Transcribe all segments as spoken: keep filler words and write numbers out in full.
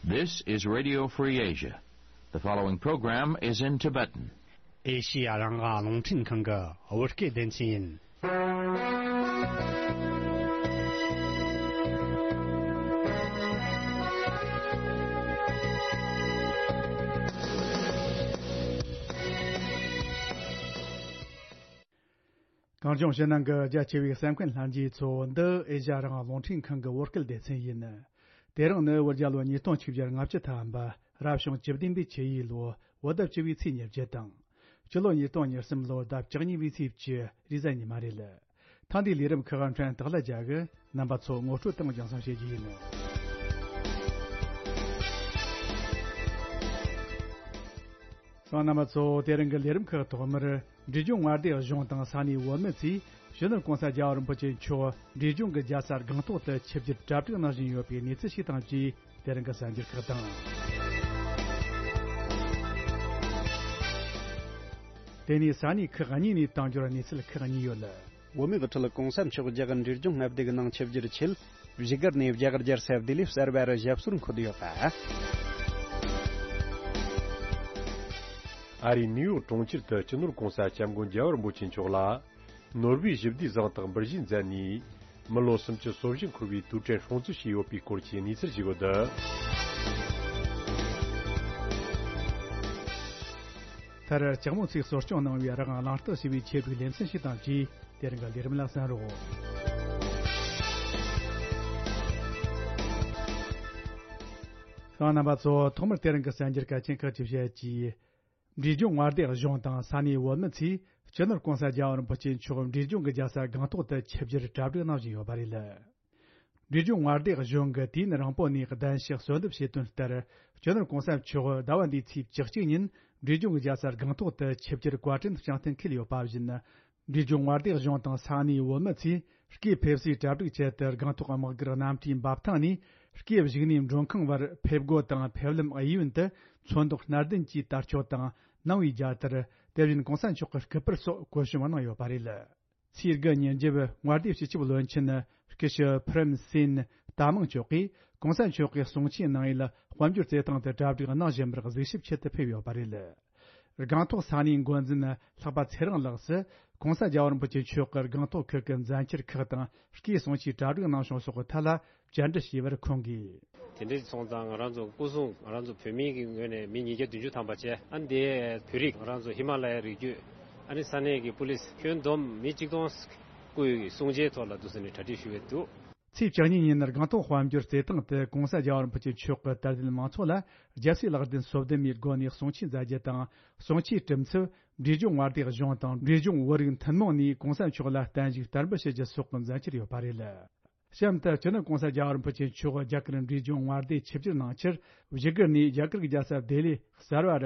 This is Radio Free Asia. The following program is in Tibetan. ཨེ་ཤི་ཡ་རང་དབང་རླུང་འཕྲིན་ཁང་གི་བོད་སྐད་སྡེ་ཚན་ཡིན། གངས་ལྗོངས་ཕྱི་ནང་གི་རྒྱ་ཆེ་བའི་གསན་མཁན་ལྷན་རྒྱས་ཚོ། འདི་ཨེ་ཤ་ཡ་རང་དབང་རླུང་འཕྲིན་ཁང་གི་བོད་སྐད་སྡེ་ཚན་ཡིན། དེ་རིང་ནི་བོད་རྒྱལ་ལོ་ཉིས་སྟོང་ཆིག་བརྒྱ་ལྔ་བཅུ་ཐམ་པ། རབ་བྱུང་བཅུ་བདུན་པའི་ཆུ་ཡོས་ལོ། བོད་ཟླ་བཅུ་བའི་ཚེས་ཉེར་བརྒྱད་དང་། སྤྱི་ལོ་ཉིས་སྟོང་ཉེར་གསུམ་ལོར་ཟླ་བཅུ་གཉིས་པའི་ཚེས་བཅུ། རེས་གཟའ་ཉི་མ་རེད། ཐེངས་འདིའི་ལས་རིམ་ཁག་ཕྲན་སྟག་ལྷ་རྒྱལ་གྱིས་རྣམ་པ་ཚོ་ངོ་སྤྲོད་དང་རྒྱང་སྲིང་བྱེད་རྒྱུ་ཡིན། སོང་རྣམ་པ་ཚོ། དེ་རིང་གི་ལས་རིམ་ཁག་ཐོག་མར། འབྲས་ལྗོངས་མངའ་སྡེ་གཞུང་དང་ས་གནས་བོད་མི་ཚོས་སྤྱི་ནོར་གོང་ས་རྒྱལ་བ་རིན་པོ་ཆེ་མཆོག་འབྲས་ལྗོངས་ཀྱི་རྒྱལ་ས་སྒང་ཏོག་ཏུ་ཆིབས་བསྒྱུར་གྲ་སྒྲིག་གནང་བཞིན་ཡོད་པའི་གནས་ཚུལ་ཞིག་དང་བཅས། དེ་རིང་གི་གསར་འགྱུར་ཁག་དང་། དེ་ནས་ས་གནས་ཁག་གཉིས་ནས་དང་འབྱོར་གནས་ཚུལ་ཁག་གཉིས་ཡོད། བོད་མིའི་དབུ་ཁྲིད་གོང་ས་མཆོག་རྒྱ་གར་འབྲས་ལྗོངས་མངའ་སྡེ་གི་ནང་ཆིབས་བསྒྱུར་ཆེད། བཞུགས་སྒར་ནས་རྒྱ་གར་རྒྱལ་ས་ལྡི་ལི་གསར་པར་ཞབས་སོར་འཁོད་ཡོད་པ། ཨ་རིའི་ནིའུ་ཡོག་གྲོང་ཁྱེར་དུ་སྤྱི་ནོར་གོང་ས་སྐྱབས་མགོན་རྒྱལ་བ་རིན་པོ་ཆེ་མཆོག་ལ། ནོར་བུའི་ཞི་བདེའི་གཟེངས་རྟགས་འབུལ་བཞེས་མཛད་ནས། མི་ལོ་སུམ་ཅུ་སོ་བཞི་འཁོར་བའི་དུས་དྲན་སྲུང་བརྩི་བྱས་ཡོད་པའི་སྐོར་གྱི་གནས་ཚུལ་ཞིག་ཡོད། མཐར་ལྕགས་མོ་ཚོས་གསོ་སྐྱོང་གནང་བའི་རང་དབང་གླེང་སྟེགས་ཞེས་པའི་ཆེད་དུ་ལེ་ཚན་ཞིག་དང་བཅས། དེ་རིང་གི་ལས་རིམ་ལ་གསན་རོགས། ཤང་རྣམ་པ་ཚོ། ཐོག་མར་དེ་རིང་གི་གསར་འགྱུར་གལ་ཆེན་ཁག་ཅིག་བཤད་ཀྱིས། འབྲས་ལྗོངས་མངའ་སྡེ་གཞུང་དང་ས་གནས་བོད་མི་ཚོས་སྤྱི་ནོར་གོང་ས་རྒྱལ་བ་རིན་པོ་ཆེ་མཆོག་འབྲས་ལྗོངས་ཀྱི་རྒྱལ་ས་སྒང་ཏོག་ཏུ་ཆིབས་བསྒྱུར་གྲ་སྒྲིག་གནང་བཞིན་ཡོད་པ་རེད། འབྲས་ལྗོངས་མངའ་སྡེ་གཞུང་གིས་དུས་ཡུན་རིང་པོ་ནས་གདན་ཞུ་གསོལ་འདེབས་བྱས་དོན་ལྟར། སྤྱི་ནོར་གོང་ས་མཆོག་ཟླ་བ་འདིའི་ཚེས་བཅུ་གཅིག་ཉིན་འབྲས་ལྗོངས་ཀྱི་རྒྱལ་ས་སྒང་ཏོག་ཏུ་ཆིབས་བསྒྱུར་བཀའ་དྲིན་བསྐྱངས་གཏན་འཁེལ་ཡོད་པ་བཞིན། འབྲས་ལྗོངས་མངའ་སྡེ་གཞུང་དང་ས་གནས་བོད་མི་ཚོས་སྐུའི་ཕེབས་བསུའི་གྲ་སྒྲིག་ཆེད་དུ་སྒང་ཏོག་དམག་སྒར་གནམ་གྲུའི་འབབ་ཐང་ནས་སྐུའི་བཞུགས་གནས་མགྲོན་ཁང་བར་ཕེབས་སྒོ་དང་ཕེབས་ལམ་གཡས་གཡོན་དུ་ཚོན་མདོག་སྣར་ལྡན་གྱི་དར་ལྕོག་དང་། ནང་པའི་རྒྱལ་དར། དེ་བཞིན་གོང་ས་མཆོག་གི་སྐུ་པར་སོགས་བཀོད་ཞིབ་གནང་ཡོད་པ་རེད། ཚེས་དགུ་ཉིན་རྒྱབ་མངའ་སྡེའི་སྤྱི་ཁྱབ་བློན་ཆེན་སྐུ་ཞབས་ཕུ་རན་སིན་ཏཱ་མང་མཆོག་གིས་གོང་ས་མཆོག་གི་གསུང་ཆོས་གནང་ཡུལ་དཔལ་འབྱོར་རྩེད་ཐང་དུ་གྲ་སྒྲིག་གནང་བཞིན་པར་གཟིགས་ཞིབ་ཆེད་དུ་ཕེབས་ཡོད་པ་རེད། སྒང་ཏོག་ས་གནས་འགོ་འཛིན་ལྷག་པ་ཚེ་རིང་ལགས་སུ་གོང་ས་རྒྱལ་བ་རིན་པོ་ཆེ་མཆོག་གིས་སྒང་ཏོག་ཁུལ་གྱི་མཛད་འཆར་ཁག་དང་སྐུའི་གསུང་ཆོས་གྲ་སྒྲིག་གནང་བྱུང་སོགས་ཀྱི་ཐད་ལ་བཅར་འདྲི་ཞུས་པར་ཁོང་གིས། དེ་འདྲ་སོང་ཙང་ང་རང་ཚོ་སྐུ་སྲུང་ང་རང་ཚོ་བོད་མི་གི་ངོས་ནས་མི་ཉིས་བརྒྱ་བདུན་ཅུ་ཐམ་པ་བྱས། ཨ་ནི་དེ་བོད་རིགས་ང་རང་ཚོ་ཧི་མ་ལ་ཡའི་རི་རྒྱུད། ཨ་ནི་ས་གནས་ཀྱི་པུ་ལིས་ཁྱོན་བསྡོམས་མི་གཅིག་སྟོང་སྐུའི་གསུང་ཆོས་ཐོག་ལ་འདུག་ཟེར་ནས་གྲ་སྒྲིག་ཞུ་གི་འདུག། ཚེས་བཅུ་གཉིས་ཉིན་སྒང་ཏོག་དཔལ་འབྱོར་རྩེད་ཐང་དུ་གོང་ས་རྒྱལ་བ་རིན་པོ་ཆེ་མཆོག་གི་དད་ལྡན་མང་ཚོགས་ལ་རྒྱལ་སྲས་ལག་ལྡན་སོ་བདུན་མའི་སྒོ་ནས་གསུང་ཆོས་མཛད་རྒྱུ་དང་། གསུང་ཆོས་གྲུབ་ཚུལ་འབྲས་ལྗོངས་མངའ་སྡེ་གཞུང་དང་འབྲས་ལྗོངས་བོད་རིགས་མཐུན་མོང་ནས་གོང་ས་མཆོག་ལ་བརྟན་བཞུགས་དར་འབུལ་ཞུ་རྒྱུ་སོགས་ཀྱི་མཛད་འཆར་ཡོད་པ་རེད། གཤམ་དུ་སྤྱི་ནོར་གོང་ས་རྒྱལ་བ་རིན་པོ་ཆེ་མཆོག་རྒྱ་གར་འབྲས་ལྗོངས་མངའ་སྡེ་ཆིབས་བསྒྱུར་གནང་ཕྱིར་བཞུགས་སྒར་ནས་རྒྱ་གར་གྱི་རྒྱལ་ས་ལྡི་ལི་གསར་པར་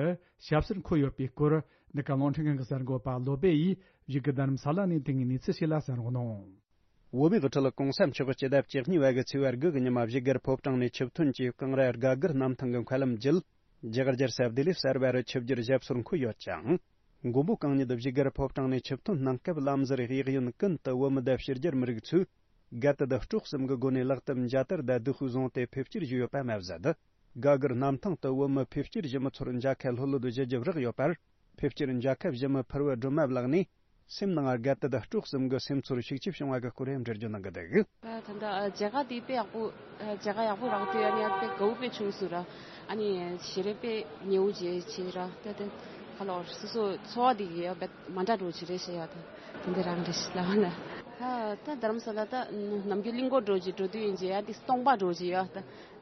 ཞབས་སོར་འཁོད་ཡོད་པའི་སྐོར་འདི་ག་རླུང་འཕྲིན་ཁང་གི་གསར་འགོད་པ་བློ་སྦེ་ཡིས་བཞུགས་སྒར་རྡ་རམ་ས་ལ་ནས་དེ་སྔའི་གནས་ཚུལ་ཞིག་ལ་གསན་རོགས་གནང་། བོད་མིའི་དབུ་ཁྲིད་གོང་ས་མཆོག་སྤྱི་ཟླ་བཅུ་གཉིས་པ་གི་ཚེས་པ་དགུ་གི་ཉི་མ་བཞུགས་སྒར་ཕོ་བྲང་ནས་ཆིབས་ཐོན་གྱིས་ཀང་ར་སྒ་སྒར་གནམ་ཐང་གི་མཁའ་ལམ་བརྒྱུད། རྒྱ་གར་རྒྱལ་ས་ལྡི་ལི་གསར་པར་ཆིབས་བསྒྱུར་ཞབས་སོར་འཁོད་ཡོད་ཅིང་། མགོན་པོ་གང་ཉིད་བཞུགས་སྒར་ཕོ་བྲང་ནས་ཆིབས་ཐོན་གནང་སྐབས་ལམ་ཟུར་གཡས་གཡོན་ཀུན་ཏུ་བོད་མི་དང་ཕྱི་རྒྱལ་མི་རིགས་ཚོས་དགའ་དད་དང་སྤྲོ་གསུམ་གྱི་སྒོ་ནས་ལག་གཏམ་མཇལ་དར་དང་སྡོད་ཤོས་བཟུང་སྟེ་ཕེབས་སྐྱེལ་ཞུས་ཡོད་པ་མ་ཟད། སྒ་སྒར་གནམ་ཐང་དུ་བོད་མི་ཕེབས་སྐྱེལ་ཞུ་མི་ཚོར་མཇལ་ཁ་ལྷོད་ལྷོད་ཞུ་རྒྱུ་རག་ཡོད་པར། ཕེབས་སྐྱེལ་མཇལ་ཁ་ཞུ་མི་ཕུར་བུ་སྒྲོལ་མ་ལགས་ནས། སེམས་ནང་དགའ་དད་དང་སྤྲོ་གསུམ་གྱི་སེམས་ཚོར་ཤུགས་ཆེ་བྱུང་བ་གི་སྐོར་ཡང་འགྲེལ་བརྗོད་གནང་གི་འདུག། ད་ད་ལྟ་མཇལ་ཁ་དེ་དཔེ་ཡག་པོ། མཇལ་ཁ་ཡག་པོ་རག་དུས་ཨ་ནི་ཨ་དཔེ་དགའ་བོ་དཔེ་བྱུང་སོང་ར། ཨ་ནི་ཞལ་རས་དཔེ་ཉེ་བོ་བྱས་བྱས་ར། ད་དེ་ཁ་ལོར་སོ་སོ་ཚོར་བ་དེ་ཡ་དཔེ་མ་འདྲ་འགྲོ་བྱེད་རེད་ཤེས་ཡ། ད་དེ་འདྲ་རང་རེད་ཤེས་ལ་བ་ན། ད་ད་རྡ་རམ་ས་ལ་ད་ནམ་རྒྱུན་གླིང་སྐོར་འགྲོ་བྱེད་འགྲོ་དུས་ཡིན་བྱས་ཡ་དེ་སྟོང་པ་འགྲོ་བྱེད་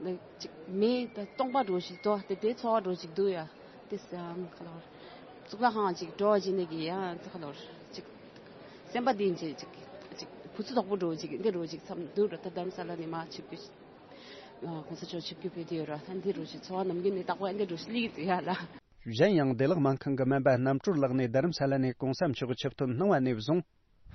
ཡ། ད་ཅིག་མེ་ད་སྟོང་པ་འགྲོ་བྱེད་དོ་དེ་དེ་ཚོར་བ་འགྲོ་བྱེད་འདུག་ཡ། དེ་སང་ཁ་ལོར་གཙུག་ལག་ཁང་ཅིག་འགྲོ་བ་ཅིག་ནས་ཀྱི་ཡང་ཁ་ལོར་ཅིག་སེམས་པ་འདི་ཅིག་ཅིག་ཅིག་བུ་ཚུ་དོག་པོ་འགྲོ་ཅིག་འདི་འགྲོ་ཅིག་མཚམས་འདུག་ར། ད་རྡ་རམ་ས་ལ་ནས་མ་ཆིབས་རྒྱུ་གོང་ས་མཆོག་ཆིབས་རྒྱུ་ཕེབས་དུས་ར། ད་འདི་འགྲོ་ཅིག་ཚོར་བ་ནམ་རྒྱུན་ནས་དག་པོ་འདི་འགྲོ་ཅིག་སླེབས་ཀྱི་འདུག་ཡ་ལ། གཞན་ཡང་བདེ་བླག་སྨན་ཁང་གི་སྨན་པ་རྣམ་གྲོལ་ལགས་ནས་རྡ་རམ་ས་ལ་ནས་གོང་ས་མཆོག་ཆིབས་ཐོན་གནང་བ་ནས་བཟུང་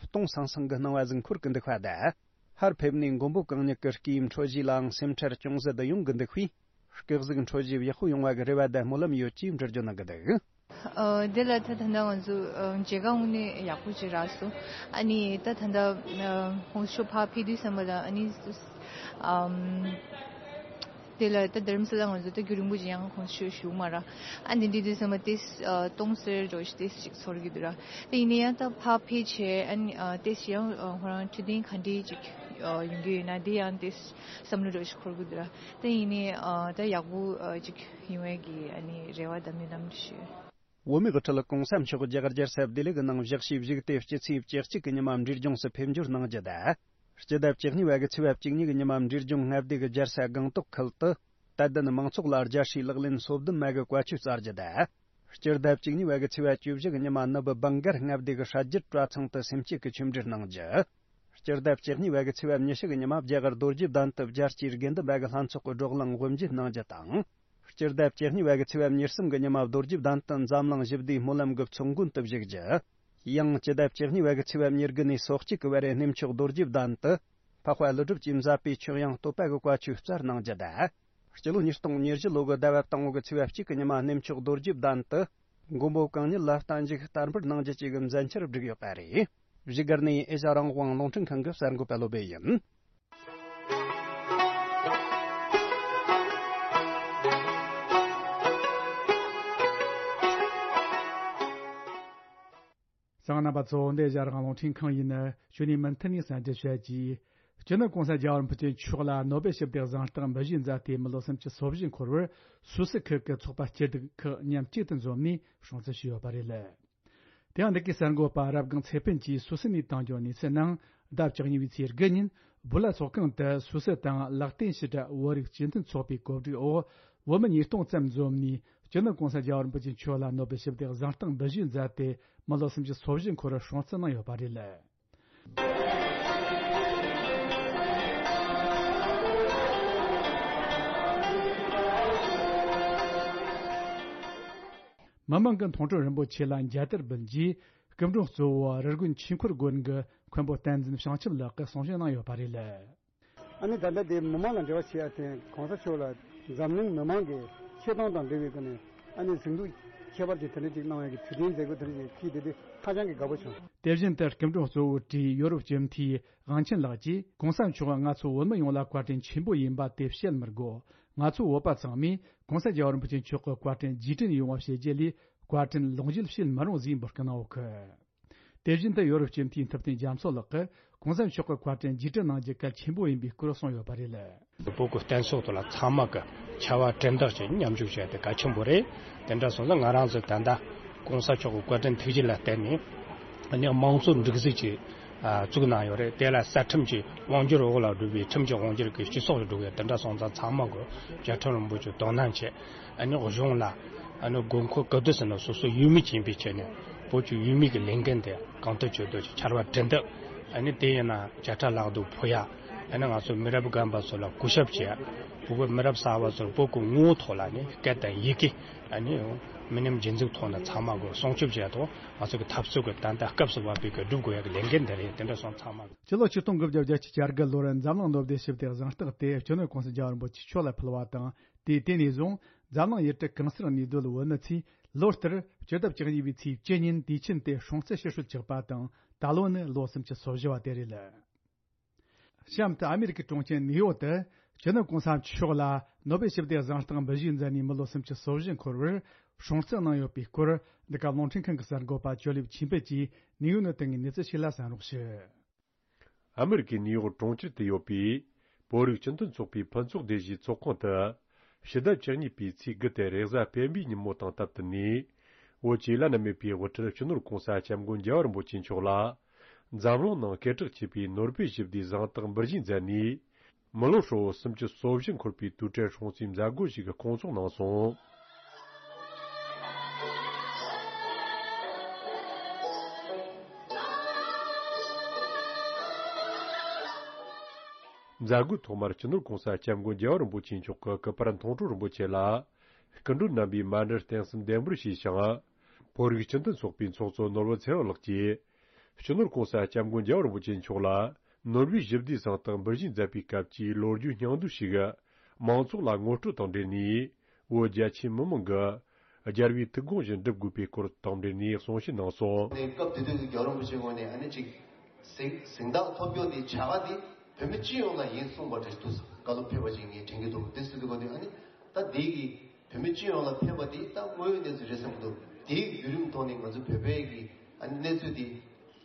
སྟོང་སང་སང་གི་སྣང་བ་ཟིག་འཁོར་གི་འདུག་པ་དང་། ཧར་ཕེབས་ནས་མགོན་པོ་གང་ཉིད་ཀྱི་སྐུའི་འཕྲོད་བཞེས་ལའང་སེམས་ཁྲལ་ཅུང་ཟད་ཡོང་གི་འདུག་པས། སྐུ་གཟུགས་འཕྲོད་བཞེས་ཡག་པོ་ཡོང་བ་གི་རེ་བ་དང་སྨོན་ལམ་ཡོད་ཅེས་འགྲེལ་བརྗོད་གནང་གི་འདུག། ཨ། དེ་ལ་ད་ད་ལྟ་ང་ཚོ་ཨ་མཇལ་ཁ་དངོས་གནས་ཡག་པོ་ཅིག་རག་སོང་། ཨ་ནི་ད་ད་ལྟ་ཨ་གོང་ས་མཆོག་ཕར་ཕེབས་དུས་ཙམ་པ་ལ་ཨ་ནི་ཨམ་ དེ་ལ་ད་དྷ་རམ་ས་ལ་ང་ཚོ་ད་རྒྱུན་རིང་པོ་ཅིག་ཡང་ཁོང་ཚོ་ཞུ་མ་ར། ཨ་འདི་འདྲ་དུས་ཙམ་པ་ཏིས་སྟོང་ཟེར་འགྲོ་ཞིག་ཏིས་ཅིག་ཚོར་གི་འདུག་ར། ད་ཡིན་ན་ཡང་ད་ཕར་ཕེབས་བྱས་ཨ་ནི་ཏིས་ཡང་ཁོ་རང་འཕྲོད་བསྟེན་ག་འདྲ་ཅིག་ཡོང་གི་ཡོད་ན་འདི་ཡང་ཏིས་བསམ་བློ་འགྲོ་ཞིག་འཁོར་གི་འདུག་ར། ད་ཡིན་ན་ད་ཡག་པོ་ཅིག་ཡོང་བའི་གི་ཨ་ནི་རེ་བ་དང་སྨོན་ལམ་ཞུ། བོད་མིའི་དབུ་ཁྲིད་གོང་ས་མཆོག་རྒྱ་གར་རྒྱལ་ས་ལྡི་ལི་གི་ནང་བཞུགས་ཞེས་བཞུགས་ཏེ་སྤྱི་ཚེས་བཅུ་གཅིག་གི་ཉི་མ་འབྲས་ལྗོངས་སུ་ཕེབས་འབྱོར་གནང་རྒྱུ་དང་། སྤྱི་ཟླ་བཅུ་གཉིས་པ་གི་ཚེས་པ་བཅུ་གཉིས་ཀྱི་ཉི་མ་འབྲས་ལྗོངས་མངའ་སྡེ་གི་རྒྱལ་ས་སྒང་ཏོག་ཁུལ་དུ། དད་ལྡན་མང་ཚོགས་ལ་རྒྱལ་སྲས་ལག་ལེན་སོ་བདུན་མ་གི་བཀའ་ཆོས་སྩལ་རྒྱུ་དང་། སྤྱི་ཟླ་བཅུ་གཉིས་པ་གི་ཚེས་པ་བཅུ་བཞི་གི་ཉི་མ་ནུབ་བང་གར་མངའ་སྡེ་གི་ཧྲ་རྒྱུད་གྲྭ་ཚང་དུ་སེམས་བསྐྱེད་ཀྱི་ཆོས་འབྲེལ་གནང་རྒྱུ། སྤྱི་ཟླ་བཅུ་གཉིས་པ་གི་ཚེས་པ་ཉི་ཤུ་གི་ཉི་མ་རྒྱ་གར་རྡོ་རྗེ་གདན་དུ་རྒྱལ་སྤྱིའི་དགེ་འདུན་པ་གི་ལྷན་ཚོགས་ཀྱི་བགྲོ་གླེང་དབུ་འབྱེད་གནང་རྒྱུ་དང་། སྤྱི་ཟླ་བཅུ་གཉིས་པ་གི་ཚེས་པ་ཉེར་གསུམ་གྱི་ཉི་མ་རྡོ་རྗེ་གདན་དུ་འཛམ་གླིང་ཞི་བདེའི་སྨོན་ལམ་གྱི་ཚོགས་མགོན་དུ་བཞུགས་རྒྱུ། ཡང་སྤྱི་ཟླ་བཅུ་གཉིས་པ་གི་ཚེས་པ་ཉེར་དགུ་ནས་སོ་གཅིག་གི་བར་གནས་མཆོག་རྡོ་རྗེ་གདན་དུ་འཕགས་པ་ཀླུ་སྒྲུབ་ཀྱིས་མཛད་པའི་ཆོས་དབྱིངས་བསྟོད་པ་གི་བཀའ་ཆོས་སྩལ་གནང་རྒྱུ་དང་། སྤྱི་ལོ་ཉིས་སྟོང་ཉེར་བཞི་ལོ་གི་ཟླ་བ་དང་པོ་གི་ཚེས་པ་གཅིག་གི་ཉི་མ་གནས་མཆོག་རྡོ་རྗེ་གདན་དུ་མགོན་པོ་གང་ཉིད་ལ་བརྟན་བཞུགས་བསྟར་འབུལ་གནང་རྒྱུ་བཅས་ཀྱི་མཛད་འཆར་བསྒྲིགས་ཡོད་པ་རེད། བཞུགས་སྒར་ནས་ཨེ་ཤ་རང་དབང་རླུང་འཕྲིན་ཁང་གི་གསར་འགོད་པ་བློ་བྷེ་ཡིན། གསན་མཁན་རྣམ་པ་ཚོ། འདི་ཨེ་ཤ་རང་དབང་རླུང་འཕྲིན་ཁང་ཡིན། ཞུ་ནས་མུ་མཐུད་ནས་གསན་རྒྱུ་བྱ་རྒྱུ། སྤྱི་ནོར་གོང་ས་རྒྱལ་བ་རིན་པོ་ཆེ་མཆོག་ལ་ནོ་སྦེལ་ཞི་བདེའི་གཟེངས་རྟགས་འབུལ་བཞེས་མཛད་དེ་མི་ལོ་སུམ་ཅུ་སོ་བཞི་འཁོར་བར་སུད་སི་ཁུལ་གྱི་ཚོགས་པ་སྐྱིད་སྡུག་ཁག་མཉམ་གཅིག་ཏུ་འཛོམས་ནས་སྲུང་བརྩི་ཞུས་ཡོད་པ་རེད། དེ་ཡང་འདི་གའི་གསར་འགོད་པ་རབ་སྒང་ཚེ་ཕུན་གྱིས་སུད་སི་ནས་བཏང་རྒྱུ་གནས་ཚུལ་ནང་ཟླ་བཅུ་གཉིས་པའི་ཚེས་དགུ་ཉིན་སྦུ་ལ་ཚོགས་ཁང་དུ་སུད་སི་དང་ལེག་ཏེན་ཤི་ཏན་བོད་རིགས་སྤྱི་མཐུན་ཚོགས་པའི་གོ་སྒྲིག་འོག་བོད་མི་ཉིས་སྟོང་ཙམ་འཛོམས་ནས་སྤྱི་ནོར་གོང་ས་རྒྱལ་བ་རིན་པོ་ཆེ་མཆོག་ལ་ནོ་སྦེལ་ཞི་བདེའི་གཟེངས་རྟགས་འབུལ་བཞེས་མཛད་དེ་མི་ལོ་སུམ་ཅུ་སོ་བཞི་འཁོར་བར་སྲུང་བརྩི་གནང་ཡོད་པ་རེད། མི་མང་གི་མཐོང་གྲོལ་རིན་པོ་ཆེ་ལ་མཇལ་དར་འབུལ་རྗེས་སྐུ་མགྲོན་གཙོ་བོ་རི་དགོན་ཆོས་འཁོར་དགོན་གྱི་མཁན་པོ་བསྟན་འཛིན་བྱང་ཆུབ་ལགས་ཀྱིས་གསུང་བཤད་གནང་ཡོད་པ་རེད། ཨ་ནི་ད་ལྟ་དེ་མི་མང་ལ་འབྲེལ་བ་བྱེད་ཡ་དེ་གོང་ས་མཆོག་ལ་འཛམ་གླིང་མི་མང་གི་ཆེ་མཐོང་དང་འབྲེལ་བའི་སྒོ་ནས་ཨ་ནི་གཟེངས་རྟགས་ཁྱད་པར་ཅན་དེ་འདྲ་ཅིག་གནང་བའི་གི་དུས་དྲན་མཛད་སྒོ་དེ་འདྲ་ཅིག་ཕྱིས་དེ་དུས་ཧ་ཅང་གི་དགའ་པོ་བྱུང་། དེ་བཞིན་དུ་སྐུ་མགྲོན་གཙོ་བོ་བཀྲིས་ཡོ་རོབ་སྤྱི་འཐུས་དབང་ཆེན་ལགས་ཀྱིས་གོང་ས་མཆོག་ང་ཚོ་བོད་མི་ཡོངས་ལ་བཀའ་དྲིན་ཆེན་པོ་ཡིན་པ་དེ་བཤད་མི་དགོས། ང་ཚོ་བོད་པ་ཚང་མས་གོང་ས་རྒྱལ་བ་རིན་པོ་ཆེ་མཆོག་གི་བཀའ་དྲིན་རྗེས་དྲན་ཡོང་བ་བྱེད་རྒྱུ་ལས་བཀའ་དྲིན་ལོངས་སྤྱོད་བྱེད་མི་རུང་ཟེར་འབོད་སྐུལ་གནང་ཡོད་གི། དེ་བཞིན་དུ་ཡོ་རོབ་སྤྱི་འཐུས་ཐུབ་བསྟན་རྒྱ་མཚོ་ལགས་ཀྱིས་གོང་ས་མཆོག་གི་བཀའ་དྲིན་རྗེས་དྲན་གནང་རྒྱུ་གལ་ཆེན་པོ་ཡིན་པའི་སྐོར་གསུངས་ཡོད་པ་རེད། བོད་ཀྱི་བསྟན་སྲོག་ཐོག་ལ་ཚང་མ་གི་ཕྱར་བ་གྲུ་འདེགས་ཀྱི་མཉམ་ཞུགས་བྱས་ཏེ་གལ་ཆེན་པོ་རེད། དེ་འདྲ་སོང་ཙང་ང་རང་ཚོ་ད་ལྟ་གོང་ས་མཆོག་གི་བཀའ་དྲིན་ཐུགས་རྗེ་ལ་བརྟེན་ནས་ཨ་ནི་དམངས་གཙོ་སྒྲིག་འཛུགས་ཅིག་ཨ་བཙུགས་གནང་ཡོད་རེད། དེ་ལ་རྩ་ཁྲིམས་ཀྱི་དབང་སྒྱུར་འོག་ལ་འགྲོ་བའི་ཁྲིམས་ཀྱི་དབང་སྒྱུར་གྱི་སྤྱི་ཚོགས་ལ་འགྲོ་བའི་དེ་འདྲ་སོང་ཙང་ཚང་མ་གི་བཅའ་ཁྲིམས་རིན་པོ་ཆེ་དོ་སྣང་བྱས། ཨ་ནི་གཞུང་ལ་ཨ་ནི་དགོས་མཁོ་ག་དུས་ཟིན་ན་སོ་སོ་ཡུལ་མི་ཡིན་པའི་ཆ་ནས་བོད་ཀྱི་ཡུལ་མི་གི་ལས་འགན་དེ་གང་ཐུབ་ཇི་ཐུབ་ཀྱིས་ཕྱར་བ་གྲུ་འདེགས། ཨ་ནི་དེ་ཡིན་ན་བྱ་ཁྲ་ལག་ཏུ་ཕུལ་ཡ། ཨ་ནི་ང་ཚོ་མི་རབས་རྒན་པ་ཚོ་ལ་གུས་ཞབས་བྱེད་ཡ། བོད་པའི་མི་རབས་གསར་པ་ཚོར་བོད་ཀྱི་ངོ་བོ་ཐོག་ལ་ནི་སྐད་དང་ཡི་གེ་ཨ་ནི་མི་ཉམས་རྗེས་འཛུགས་ཐོག་ནས་ཚང་མ་གི་སྲུང་སྐྱོབ་བྱེད་ཡ་དང་། ང་ཚོ་གི་འཐབ་རྩོད་ཀྱི་ད་ལྟ་སྐབས་སུ་བབས་པའི་གི་སྒྲུབ་དགོས་ཡ་གི་ལས་འགན་དེ་རེད། དེ་འདྲ་སོང་ཚང་མ་གི། སྤྱི་ལོ་ཆིག་སྟོང་དགུ་བརྒྱ་བརྒྱད་ཅུ་གྱ་དགུ་ལོར་འཛམ་གླིང་ནོ་སྦེལ་ཞི་བདེའི་གཟེངས་རྟགས་དེ་སྤྱི་ནོར་གོང་ས་རྒྱལ་བ་རིན་པོ་ཆེ་མཆོག་ལ་ཕུལ་བ་དང་། དེའི་དེ་ནས་བཟུང་འཛམ་གླིང་ཡུལ་གྲུ་གང་སར་གནས་སྡོད་བོད་མི་ཚོས་ལོ་ལྟར་སྤྱི་ཟླ་བཅུ་གཉིས་པའི་ཚེས་བཅུ་ཉིན་དུས་ཆེན་དེ་སྲུང་བརྩི་ཞུ་སྲོལ་ཆགས་པ་དང་། ད་ལོ་ནི་ལོ་སུམ་ཅུ་སོ་བཞི་བ་དེ་རེད། གཤམ་དུ་ཨ་མེ་རི་ཀའི་གྲོང་ཁྱེར་ནིའུ་ཡོག་ཏུ་སྤྱི་ནོར་གོང་ས་མཆོག་ལ་ནོ་སྦེལ་ཞི་བདེའི་གཟེངས་རྟགས་འབུལ་བཞེས་མཛད་ནས་མི་ལོ་སུམ་ཅུ་སོ་བཞི་འཁོར་བར་སྲུང་བརྩི་གནང་ཡོད་པའི་སྐོར་འདི་ག་རླུང་འཕྲིན་ཁང་གི་གསར་འགོད་པ་ཇོ་ལེབ་ཆོས་འཕེལ་གྱིས་ནིའུ་ཡོག་ནས་བཏང་བའི་གནས་ཚུལ་ཞིག་ལ་གསན་རོགས་ཞུ། ཨ་མེ་རི་ཀའི་ནིའུ་ཡོག་གྲོང་ཁྱེར་དུ་ཡོད་པའི་བོད་རིགས་སྤྱི་མཐུན་ཚོགས་པའི་ཕུན་ཚོགས་སྡེ་བཞིའི་ཚོགས་ཁང་དུ། ཕྱི་ཟླ་བཅུ་གཉིས་པའི་ཚེས་དགུ་སྟེ་རེས་གཟའ་སྤེན་པའི་ཉིན་མོ་དང་སྟབས་བསྟུན་ནས། བོད་ཀྱི་བླ་ན་མེད་པའི་དབུ་ཁྲིད་སྤྱི་ནོར་གོང་ས་སྐྱབས་མགོན་རྒྱལ་བ་རིན་པོ་ཆེ་མཆོག་ལ། འཛམ་གླིང་ནང་སྐད་གྲགས་ཆེ་བའི་ནོ་སྦེལ་ཞི་བདེའི་གཟེངས་རྟགས་འབུལ་བཞེས་མཛད་ནས། མི་ལོ་ཧྲིལ་བོ་སུམ་ཅུ་སོ་བཞི་འཁོར་བའི་དུས་དྲན་སྲུང་བརྩིའི་མཛད་སྒོ་ཞིག་སྐོང་ཚོགས་གནང་སོང་། མཛད་སྒོའི་ཐོག་མར་སྤྱི་ནོར་གོང་ས་སྐྱབས་མགོན་རྒྱལ་བ་རིན་པོ་ཆེ་མཆོག་གི་སྐུ་པར་མཐོང་གྲོལ་རིན་པོ་ཆེ་ལ་སྐུ་མགྲོན་རྣམ་པས་མཎྜལ་རྟེན་གསུམ་ལྡེམ་པར་ཞུས་ཤིང་། བོད་རིགས་སྤྱི་མཐུན་ཚོགས་པའི་ཚོགས་གཙོ་ནོར་བུ་ཚེ་རིང་ལགས་ཀྱིས། སྤྱི་ནོར་གོང་ས་སྐྱབས་མགོན་རྒྱལ་བ་རིན་པོ་ཆེ་མཆོག་ལ་ནོ་སྦེལ་ཞི་བདེའི་གཟེངས་རྟགས་འབུལ་བཞེས་མཛད་པའི་སྐབས་ཀྱི་ལོ་རྒྱུས་སྙིང་བསྡུས་ཤིག་མང་ཚོགས་ལ་ངོ་སྤྲོད་དང་འབྲེལ་ནས། བོད་རྒྱ་ཆེའི་མི་མང་གིས་རྒྱལ་བའི་ཐུགས་དགོངས་བཞིན་སྒྲུབ་དགོས་པའི་སྐོར་དང་འབྲེལ་ནས་གསུང་བཤད་གནང་སོང་། ནས་སྐབས་དེ་དུས་ཀྱི་རྒྱལ་བ་རིན་པོ་ཆེའི་ངོས་ནས་ཨ་ནི་ཅིག་གཟེངས་གཟེངས་རྟགས་ཐོབ་རྒྱུ་དེ་བྱ་དགའ་དེ་ བོད་མི་སྤྱི་ཡོངས་ལ་ཡིན་གསུངས་པ་རེད་འདུག་བཀའ་སློབ་ཕེབས་པ་ཅིག་ངས་དྲན་གྱི་འདུག་དེ་སྲིད་དུ་གོ་དུས་ཨ་ནི་ད་འདི་གི་བོད་མི་སྤྱི་ཡོངས་ལ་ཕེབས་པ་དེ་ད་དངོས་ཡོད་གནས་ཚུལ་རེད་བསམ་གྱི་འདུག་དེའི་བརྒྱུད་རིམ་ཐོག་ནས་ང་ཚོ་བོད་པའི་གི་ཨ་ནི་གནས་ཚུལ་དེ་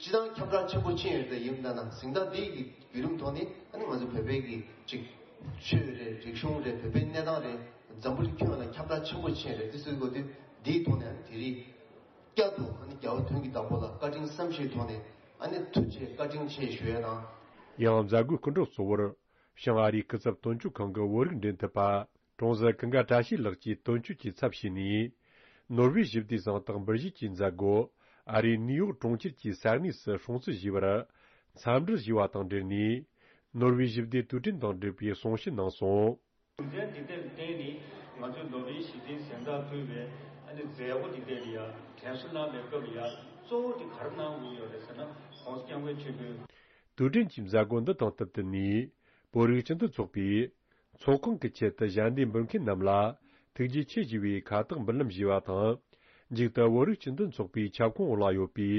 སྤྱི་བཏང་ཁྱབ་བསྒྲགས་ཆེན་པོ་ཕྱིན་ཡོད་དེ་ཡིན་ན་ན་གཟེངས་རྟགས་འདི་གི་བརྒྱུད་རིམ་ཐོག་ནས་ཨ་ནི་ང་ཚོ་བོད་པའི་གི་ཅིག་ཆོས་རེད། རིག་གཞུང་རེད། བོད་པའི་གནས་སྟངས་རེད། འཛམ་བུ་གླིང་ཁྱོན་ལ་ཁྱབ་བསྒྲགས་ཆེན་པོ་ཕྱིན་རེད། དེ་སྲིད་དུ་གོ་དུས་འདིའི་ཐོག་ནས་ཨ་ནི་དེ་རིང་བསྐྱར་དུ་ཨ་ནི་རྒྱལ་བ་དོན་གྱི་བདག་པོ་ལ་བཀའ་དྲིན་བསམ་ཤེས་ཐོག་ནས་ཨ་ནི་ཐུགས་རྗེ་བཀའ་དྲིན་ཆེ་ཞུ་ཡ་དང་། ཡང་མཛད་སྒོའི་སྐུ་མགྲོན་གཙོ་བོར་བྱང་ཨ་རིའི་སྐུ་ཚབ་དོན་གཅོད་ཁང་གི་བོད་རིགས་འབྲེལ་མཐུད་པ་ཀྲོང་གསར་ཀུན་དགའ་བཀྲ་ཤིས་ལགས་ཀྱིས་དོན་གཅོད་ཀྱི་ཚབ་བྱས་ནས། ནོར་ཝེ་ཞི་བདེའི་གཟེངས་རྟགས་འབུལ་བཞེས་ཀྱི་མཛད་སྒོ་ཨ་རིའི་ནིའུ་ཡོག་གྲོང་ཁྱེར་གྱི་ས་གནས་སུ་སྲུང་བརྩི་ཞུས་པར་འཚམས་འདྲི་ཞུས་པ་དང་འབྲེལ་ནས། ནོར་ཝེ་ཞི་བདེའི་དུས་དྲན་དང་འབྲེལ་བའི་གསུང་བཤད་གནང་སོང་། རྒྱུ་མཚན་འདི་ལྟར་བརྟེན་ནས་ང་ཚོས་ནོར་ཝེ་ཞི་བདེའི་གཟེངས་རྟགས་ཕུལ་བའི་ཨ་ནི་མཛད་སྒོ་འདི་ལྟར་ཡ་དྲན་གསོ་གནང་བའི་སྐབས་ལ་ཡ་གཙོ་བོ་དེ་ག་རེ་གནང་དགོས་ཡོད་རེད་ཟེར་ན། ༸གོང་ས་༸སྐྱབས་མགོན་ཆེན་པོས། དུས་དྲན་གྱི་མཛད་སྒོ་འདི་དང་བསྟུན་ཏེ་ནས། བོད་རིགས་སྤྱི་མཐུན་ཚོགས་པའི་ཚོགས་ཁང་གི་ཆེད་དུ་ཞལ་འདེབས་འབུལ་མཁན་རྣམས་ལ་ཐུགས་རྗེ་ཆེ་ཞུ་བའི་ཁ་བཏགས་འབུལ་ལམ་ཞུས་པ་དང་། མཇུག་ཏུ་བོད་རིགས་སྤྱི་མཐུན་ཚོགས་པའི་ཁྱབ་ཁོངས་འོག་ལ་ཡོད་པའི་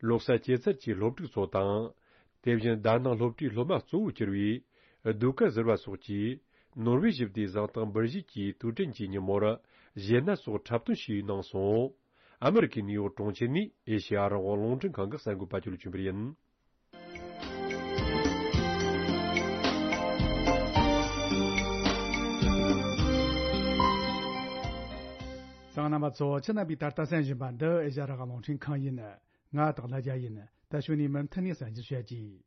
ལོ་གསར་སྐྱེད་ཚལ་གྱི་སློབ་ཕྲུག་ཚོ་དང་། དེ་བཞིན་དྷ་ནང་སློབ་གྲྭའི་སློབ་མ་གཙོ་བོ་གྱུར་བའི་ཟློས་གར་ཟུར་པ་སོགས་ཀྱིས་ནོར་ཝེ་ཞི་བདེའི་གཟེངས་རྟགས་འབུལ་བཞེས་ཀྱི་དུས་དྲན་གྱི་ཉིན་མོར་གཞས་སྣ་སོགས་འཁྲབ་སྟོན་ཞུས་གནང་སོང་། ཨ་མེ་རི་ཁའི་ནིའུ་ཡོག་གྲོང་ཁྱེར་ནས་ཨེ་ཤེ་ཡ་རང་དབང་རླུང་འཕྲིན་ཁང་གི་གསར་འགོད་པ་ཅོ་ལི་ཆོས་འཕེལ་ཡིན། གསན་མཁན་རྣམ་པ་ཚོ། ཁྱེད་རྣམ་པས་ད་ལྟ་གསན་བཞིན་པ་འདི་ཨེ་ཤེ་ཡ་རང་དབང་རླུང་འཕྲིན་ཁང་ཡིན། ང་སྟག་ལྷ་རྒྱལ་ཡིན། ད་གཞུག་ནས་མུ་མཐུད་ནས་གསན་རྒྱུ་བྱ་རྒྱུ།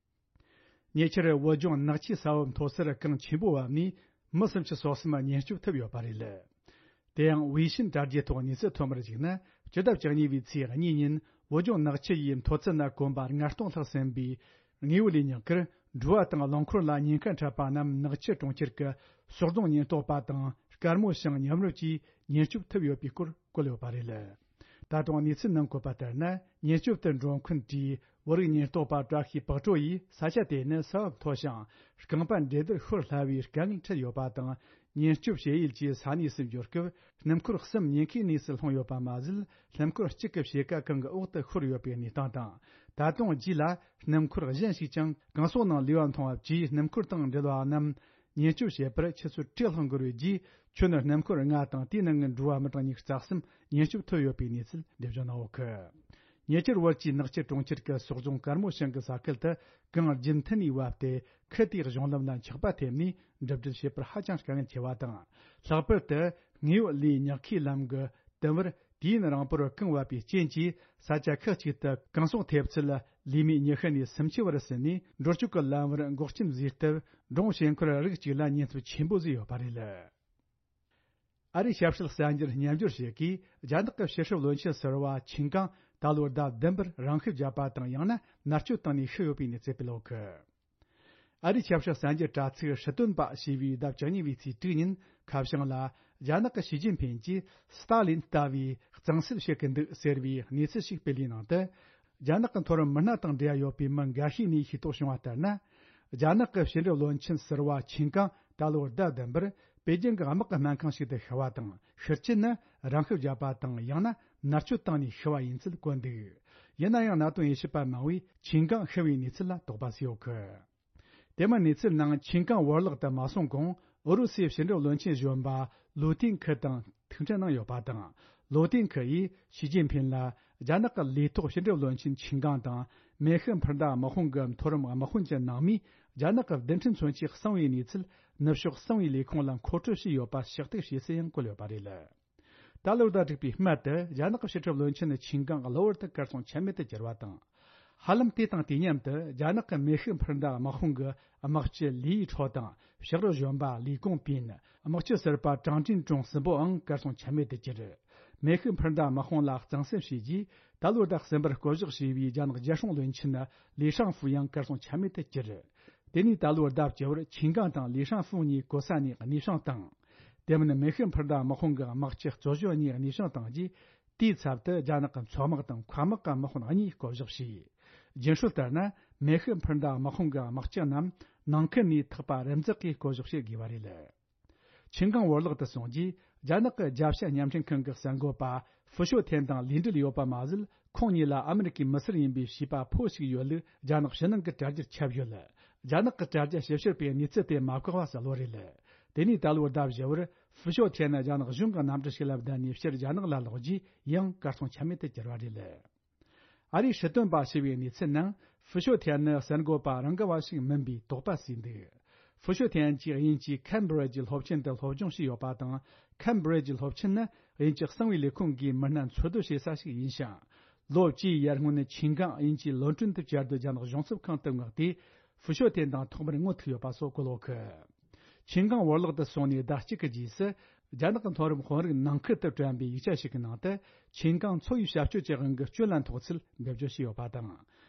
ཉེ་ཆར་བོད་ལྗོངས་ནག་ཆུའི་ས་བབ་མཐོ་སར་གངས་ཆེན་པོ་བབས་ནས་མི་སུམ་ཅུ་སོ་གསུམ་ཉེན་སྐྱོབ་ཐུབ་ཡོད་པ་རེད། དེ་ཡང་ཝེ་ཤིན་དྲ་རྒྱའི་ཐོག་གནས་ཚུལ་ཐོན་པར་གཞིགས་ན། སྤྱི་ཟླ་བཅུ་གཉིས་པའི་ཚེས་གཉིས་ཉིན་བོད་ལྗོངས་ནག་ཆུ་ཡི་མཐོ་ཚད་ན་གོམ་པ་ལྔ་སྟོང་ལྷག་ཟིན་པའི་དངོས་པོ་ལས་ཉག་གིར་འགྲུལ་བ་དང་རླངས་འཁོར་ལ་ཉེན་ཁ་འཕྲད་པ་རྣམས་ནག་ཆུ་གྲོང་ཁྱེར་གྱི་ཟོག་རྫོང་ཉེན་རྟོག་པ་དང་དཀར་མོ་ཤང་མཉམ་རུབ་ཀྱིས་ཉེན་སྐྱོབ་ཐུབ་ཡོད་པའི་སྐོར་བཀོད་ཡོད་པ་རེད། ད་དུང་གནས་ཚུལ་ནང་བཀོད་པ་ལྟར་ན། ཉེན་སྐྱོབ་ཏུ་འགྲོ་མཁན་གྱི་བོད་རིགས་ཉེན་རྟོག་པ་བཀྲ་ཤིས་དཔལ་སྤྲོ་ཡིས་ས་ཆ་དེ་ནི་ས་བབ་མཐོ་ཞིང་རྐང་པ་འགྲན་བསྡུར་ཤོར་སླ་བའི་དཀའ་ངལ་འཕྲད་ཡོད་པ་དང་། ཉེན་སྐྱོབ་བྱེད་ཡུལ་གྱི་ས་གནས་སུ་འབྱོར་སྐབས། སྣུམ་འཁོར་གསུམ་ཉེན་ཁའི་གནས་སུ་ལྷུང་ཡོད་པ་མ་ཟད། སྣུམ་འཁོར་གཅིག་གི་ཕྱེད་ཀ་གངས་ཀྱི་འོག་ཏུ་ཤོར་ཡོད་པའི་གནས་སྟངས་དང་། ད་དུང་རྗེས་ལ་སྣུམ་འཁོར་གཞན་ཞིག་ཀྱང་གངས་ཟོག་ནང་ལུས་པ་མཐོང་བ་བཅས་སྣུམ་འཁོར་དང་འབྲེལ་བ་རྣམས། ཉེན་སྐྱོབ་བྱེད་པར་ཆུ་ཚོད་དྲུག་ལྷག་འགོར་བའི་རྗེས། ཁྱོན་ནས་སྣུམ་འཁོར་ལྔ་དང་དེའི་ནང་གི་འགྲུལ་བ་མི་གྲངས་ཉི་ཤུ་རྩ་གསུམ་ཉེན་སྐྱོབ་ཐུབ་ཡོད་པའི་གནས་ཚུལ་འདེམས་སྦྱོང་གནང་ཡོད་གི། ཉེ་ཆར་བོད་ཀྱི་ནག་ཆུ་གྲོང་ཁྱེར་གྱི་ཟོག་རྫོང་དཀར་མོ་ཤང་གི་ས་ཁུལ་དུ་གངས་རྒྱུན་མཐུད་ནས་བབས་ཏེ། ཁུལ་དེའི་གཞུང་ལམ་ལ་འཁྱགས་པ་ཐེབས་ནས་འགྲིམ་འགྲུལ་བྱེད་པར་ཧ་ཅང་དཀའ་ངལ་ཆེ་བ་དང་། ལྷག་པར་དུ་དངོས་པོ་ལས་ཉག་ཁའི་ལམ་གྱི་དུམ་བུར། དུས་ཡུན་རིང་པོར་གངས་བབས་པའི་རྐྱེན་གྱིས། ས་ཆ་ཁག་ཅིག་ཏུ་གངས་ཟོག་ཐེབས་ཚད་ལས་མེད་ཉི་ཤུ་ནས་སུམ་ཅུ་བར་ཟིན་ནས། འགྲོ་སྐྱོད་ཀྱི་ལམ་བར་འགོག་རྐྱེན་བཟོས་སྟབས། འབྲོང་ཞིང་འཁོར་རིགས་གཅིག་ལ་ཉེན་ཚབས་ཆེན་པོ་བཟོས་ཡོད་པ་རེད། ཨ་རིའི་ཞབས་ཞུ་གསར་འགྱུར་སྙན་སྒྲོན་ཞིག་གིས། རྒྱ་ནག་གི་ཕྱི་སྲིད་བློན་ཆེན་ཟུར་པ་ཆིན་ཀང་ད་ལོའི་ཟླ་བདུན་པར་རང་ཤི་བརྒྱབ་པ་དང་། ཡང་ན་མནར་གཅོད་བཏང་ནས་ཤི་ཡོད་པའི་གནས་ཚུལ་སྤེལ་ཡོད་གི། ཨ་རིའི་ཆབ་སྲིད་གསར་འགྱུར་དྲ་ཚིགས་ཧྲི་ཏོན་པ་ཞེས་པའི་ཟླ་བཅུ་གཉིས་པའི་ཚེས་དྲུག་ཉིན་ཁ་བྱང་ལ། རྒྱ་ནག་གི་ཞི་ཅིན་ཕིན་གྱིས་སི་ཏཱ་ལིན་ལྟ་བུའི་གཙང་སེལ་བྱེད་ཀྱི་འདུག་ཟེར་བའི་གནས་ཚུལ་ཞིག་སྤེལ་བའི་ནང་དུ། རྒྱ་ནག་གི་མཐོ་རིམ་མི་སྣ་དང་འབྲེལ་བ་ཡོད་པའི་མི་འགའ་ཤས་ནས་ཤེས་རྟོགས་བྱུང་བ་ལྟར་ན། རྒྱ་ནག་གི་ཕྱི་འབྲེལ་བློན་ཆེན་ཟུར་པ་ཆིན་ཀང་ད་ལོའི་ཟླ་བདུན་པར་པེ་ཅིང་གི་དམག་གི་སྨན་ཁང་ཞིག་ཏུ་ཤི་བ་དང་། ཤི་རྐྱེན་ནི་རང་ཤི་བརྒྱབ་པ་དང་། ཡང་ན་མནར་གཅོད་བཏང་ནས་ཤི་བ་ཡིན་ཚུལ་བཀོད་འདུག། ཡིན་ན་ཡང་། གནད་དོན་དབྱེ་ཞིབ་པ་མང་བོས་ཆིན་ཀང་ཤི་བའི་གནས་ཚུལ་ལ་དོགས་པ་བྱས་ཡོད་གི། དེ་མིན་གནས་ཚུལ་ནང་ཆིན་ཀང་བོར་བརླག་ཏུ་མ་སོང་གོང་། ཨུ་རུ་སུའི་ཕྱི་འབྲེལ་བློན་ཆེན་གཞོན་པ་ལུ་ཏིན་ཁི་དང་ཐུག་འཕྲད་གནང་ཡོད་པ་དང་། ལུ་ཏིན་ཁི་ཡིས་ཞི་ཅིན་ཕིན་ལ། རྒྱ་ནག་གི་ལས་ཐོག་ཕྱི་འབྲེལ་བློན་ཆེན་ཆིན་ཀང་དང་། མེ་ཤི་འཕུར་མདའ་དམག་དཔུང་གི་མཐོ་རིམ་དམག་དཔོན་གྱི་ནང་མིས། རྒྱ་ནག་གི་རྡུལ་ཕྲན་མཚོན་ཆས་གསང་བའི་གནས་ཚུལ་ནུབ་ཕྱོགས་གསང་བའི་ལས་ཁུངས་ལ་མཁོ་སྤྲོད་བྱས་ཡོད་པ་ཕྱག་བཏེག་བྱས་ཚུལ་ཡང་བཀོད་ཡོད་པ་རེད། ད་ལོའི་ཟླ་དྲུག་པའི་སྨད་དུ། རྒྱ་ནག་གི་ཕྱི་སྲིད་བློན་ཆེན་ཆིན་ཀང་གློ་བུར་དུ་གར་སོང་ཆ་མེད་དུ་གྱུར་བ་དང་། ཧ་ལམ་དེ་དང་དུས་མཉམ་དུ། རྒྱ་ནག་གི་མེ་ཤི་འཕུར་མདའ་དམག་དཔུང་གི་དམག་སྤྱི་ལི་ཡི་ཁྲོ་དང་། ཕྱག་རོགས་གཞོན་པ་ལི་ཀོང་པིན། དམག་སྤྱི་ཟུར་པ་ཀྲང་ཀྲིན་ཀྲུང་གསུམ་པོའང་གར་སོང་ཆ་མེད་དུ་གྱུར། མེ་ཤི་འཕུར་མདའ་དམག་དཔུང་ལ་གཙང་སེལ་བྱས་རྗེས། ད་ལོའི་ཟླ་གསུམ་པར་བསྐོ་གཞག་བྱས་པའི་རྒྱ་ནག་རྒྱལ་སྲུང་བློན་ཆེན་ལི་ཧྲང་ཧྥུ་ཡང་གར་སོང་ཆ་མེད་དུ་གྱུར། དེ་ནས་ད་ལོའི་ཟླ་བཅུ་པར་ཆིན་ཀང་དང་ལི་ཧྲང་ཧྥུ་གཉིས་གོ་ས་ནས་གནས་འཕྱང་བཏང་། དེ་མིན་མེ་ཤི་འཕུར་མདའ་དམག་དཔུང་གི་དམག་སྤྱི་གཙོ་གཞོན་གཉིས་གནས་འཕྱང་བཏང་རྗེས། དེའི་ཚབ་ཏུ་རྒྱ་ནག་གི་མཚོ་དམག་དང་མཁའ་དམག་གི་དམག་དཔོན་གཉིས་བསྐོ་གཞག་བྱས། རྒྱུན་སྲོལ་ལྟར་ན། མེ་ཤི་འཕུར་མདའ་དམག་དཔུང་གི་དམག་སྤྱི་རྣམས་ནང་ཁུལ་ནས་ཐག་པ་རིམ་འཛེག་གིས་བསྐོ་གཞག་བྱེད་དགོས་པ་རེད། ཆིན་ཀང་བོར་བརླག་ཏུ་སོང་རྗེས། རྒྱ་ནག་གི་རྒྱབ་ཤ་བརྙན་འཕྲིན་ཁང་གི་གསར་འགོད་པ་ཧྥུ་ཤོ་ཐན་དང་ལས་འབྲེལ་ཡོད་པ་མ་ཟད། ཁོང་གཉིས་ལ་ཨ་མི་རི་ཀའི་མི་སེར་ཡིན་པའི་བྱིས་པ་ཕོ་ཞིག་ཡོད་ལུགས་རྒྱ་ནག་ཕྱི་ནང་གི་དྲ་རྒྱར་ཁྱབ་ཡོད། རྒྱ་ནག་གི་དྲ་རྒྱ་ཞིབ་བཤེར་པས་གནས་ཚུལ་དེ་མ་བཀག་པ་གསལ་བོ་རེད། དེ་ནས་ད་ལོའི་ཟླ་བཞི་པར་ཧྥུ་ཤོ་ཐན་ནི་རྒྱ་ནག་གཞུང་གི་གནམ་གྲུ་ཞིག་ལ་བརྡབས་ནས་ཕྱིར་རྒྱ་ནག་ལ་ལོག་རྗེས་ཡང་གར་སོང་ཆ་མེད་དུ་གྱུར་བ་རེད། ཨ་རིའི་སྲིད་དོན་པ་ཞི་བའི་གནས་ཚུལ་ནང་ཧྥུ་ཤོ་ཐན་ནི་གསར་འགོད་པ་རང་གི་བ་ཞིག་མིན་པའི་དོགས་པ་བཟོས་འདུག་ཧྥུ་ཤོ་ཐན་གྱིས་དབྱིན་ཇིའི་ཁེམ་བྷྲིཇ་སློབ་ཆེན་དུ་སློབ་སྦྱོང་བྱས་ཡོད་པ་དང་། ཁེམ་བྷྲིཇ་སློབ་ཆེན་ནི་དབྱིན་ཇི་གསང་བའི་ལས་ཁུངས་ཀྱིས་མི་སྣ་འཚོ་སྡོད་བྱེད་ས་ཞིག་ཡིན་ཞིང་། ལོ་བཅུའི་ཡར་སྔོན་ཆིན་ཀང་དབྱིན་ཇིའི་ལོན་ཀྲོན་དུ་བཅའ་སྡོད་རྒྱ་ནག་གཞུང་ཚབ་ཁང་དུ་མངགས་ཏེ། ཧྥུ་ཤོ་ཐན་དང་ཐོག་མར་ངོ་ཐུག་ཡོད་པ་སོགས་གོ་ལོག་གི་ཆིན་ཀང་བོར་བརླག་ཏུ་སོང་ནས་ཟླ་གཅིག་གི་རྗེས་སུ། རྒྱ་ནག་གི་མཐོ་རིམ་དཔོན་རིགས་ནང་ཁུལ་དུ་བཀྲམ་པའི་ཡིག་ཆ་ཞིག་གི་ནང་དུ། ཆིན་ཀང་འཚོ་བའི་བྱ་སྤྱོད་ཀྱི་དབང་གིས་སྐྱོན་ལ་འཐོག་ཚུལ་འགྲེལ་བརྗོད་བྱས་ཡོད་པ་དང་།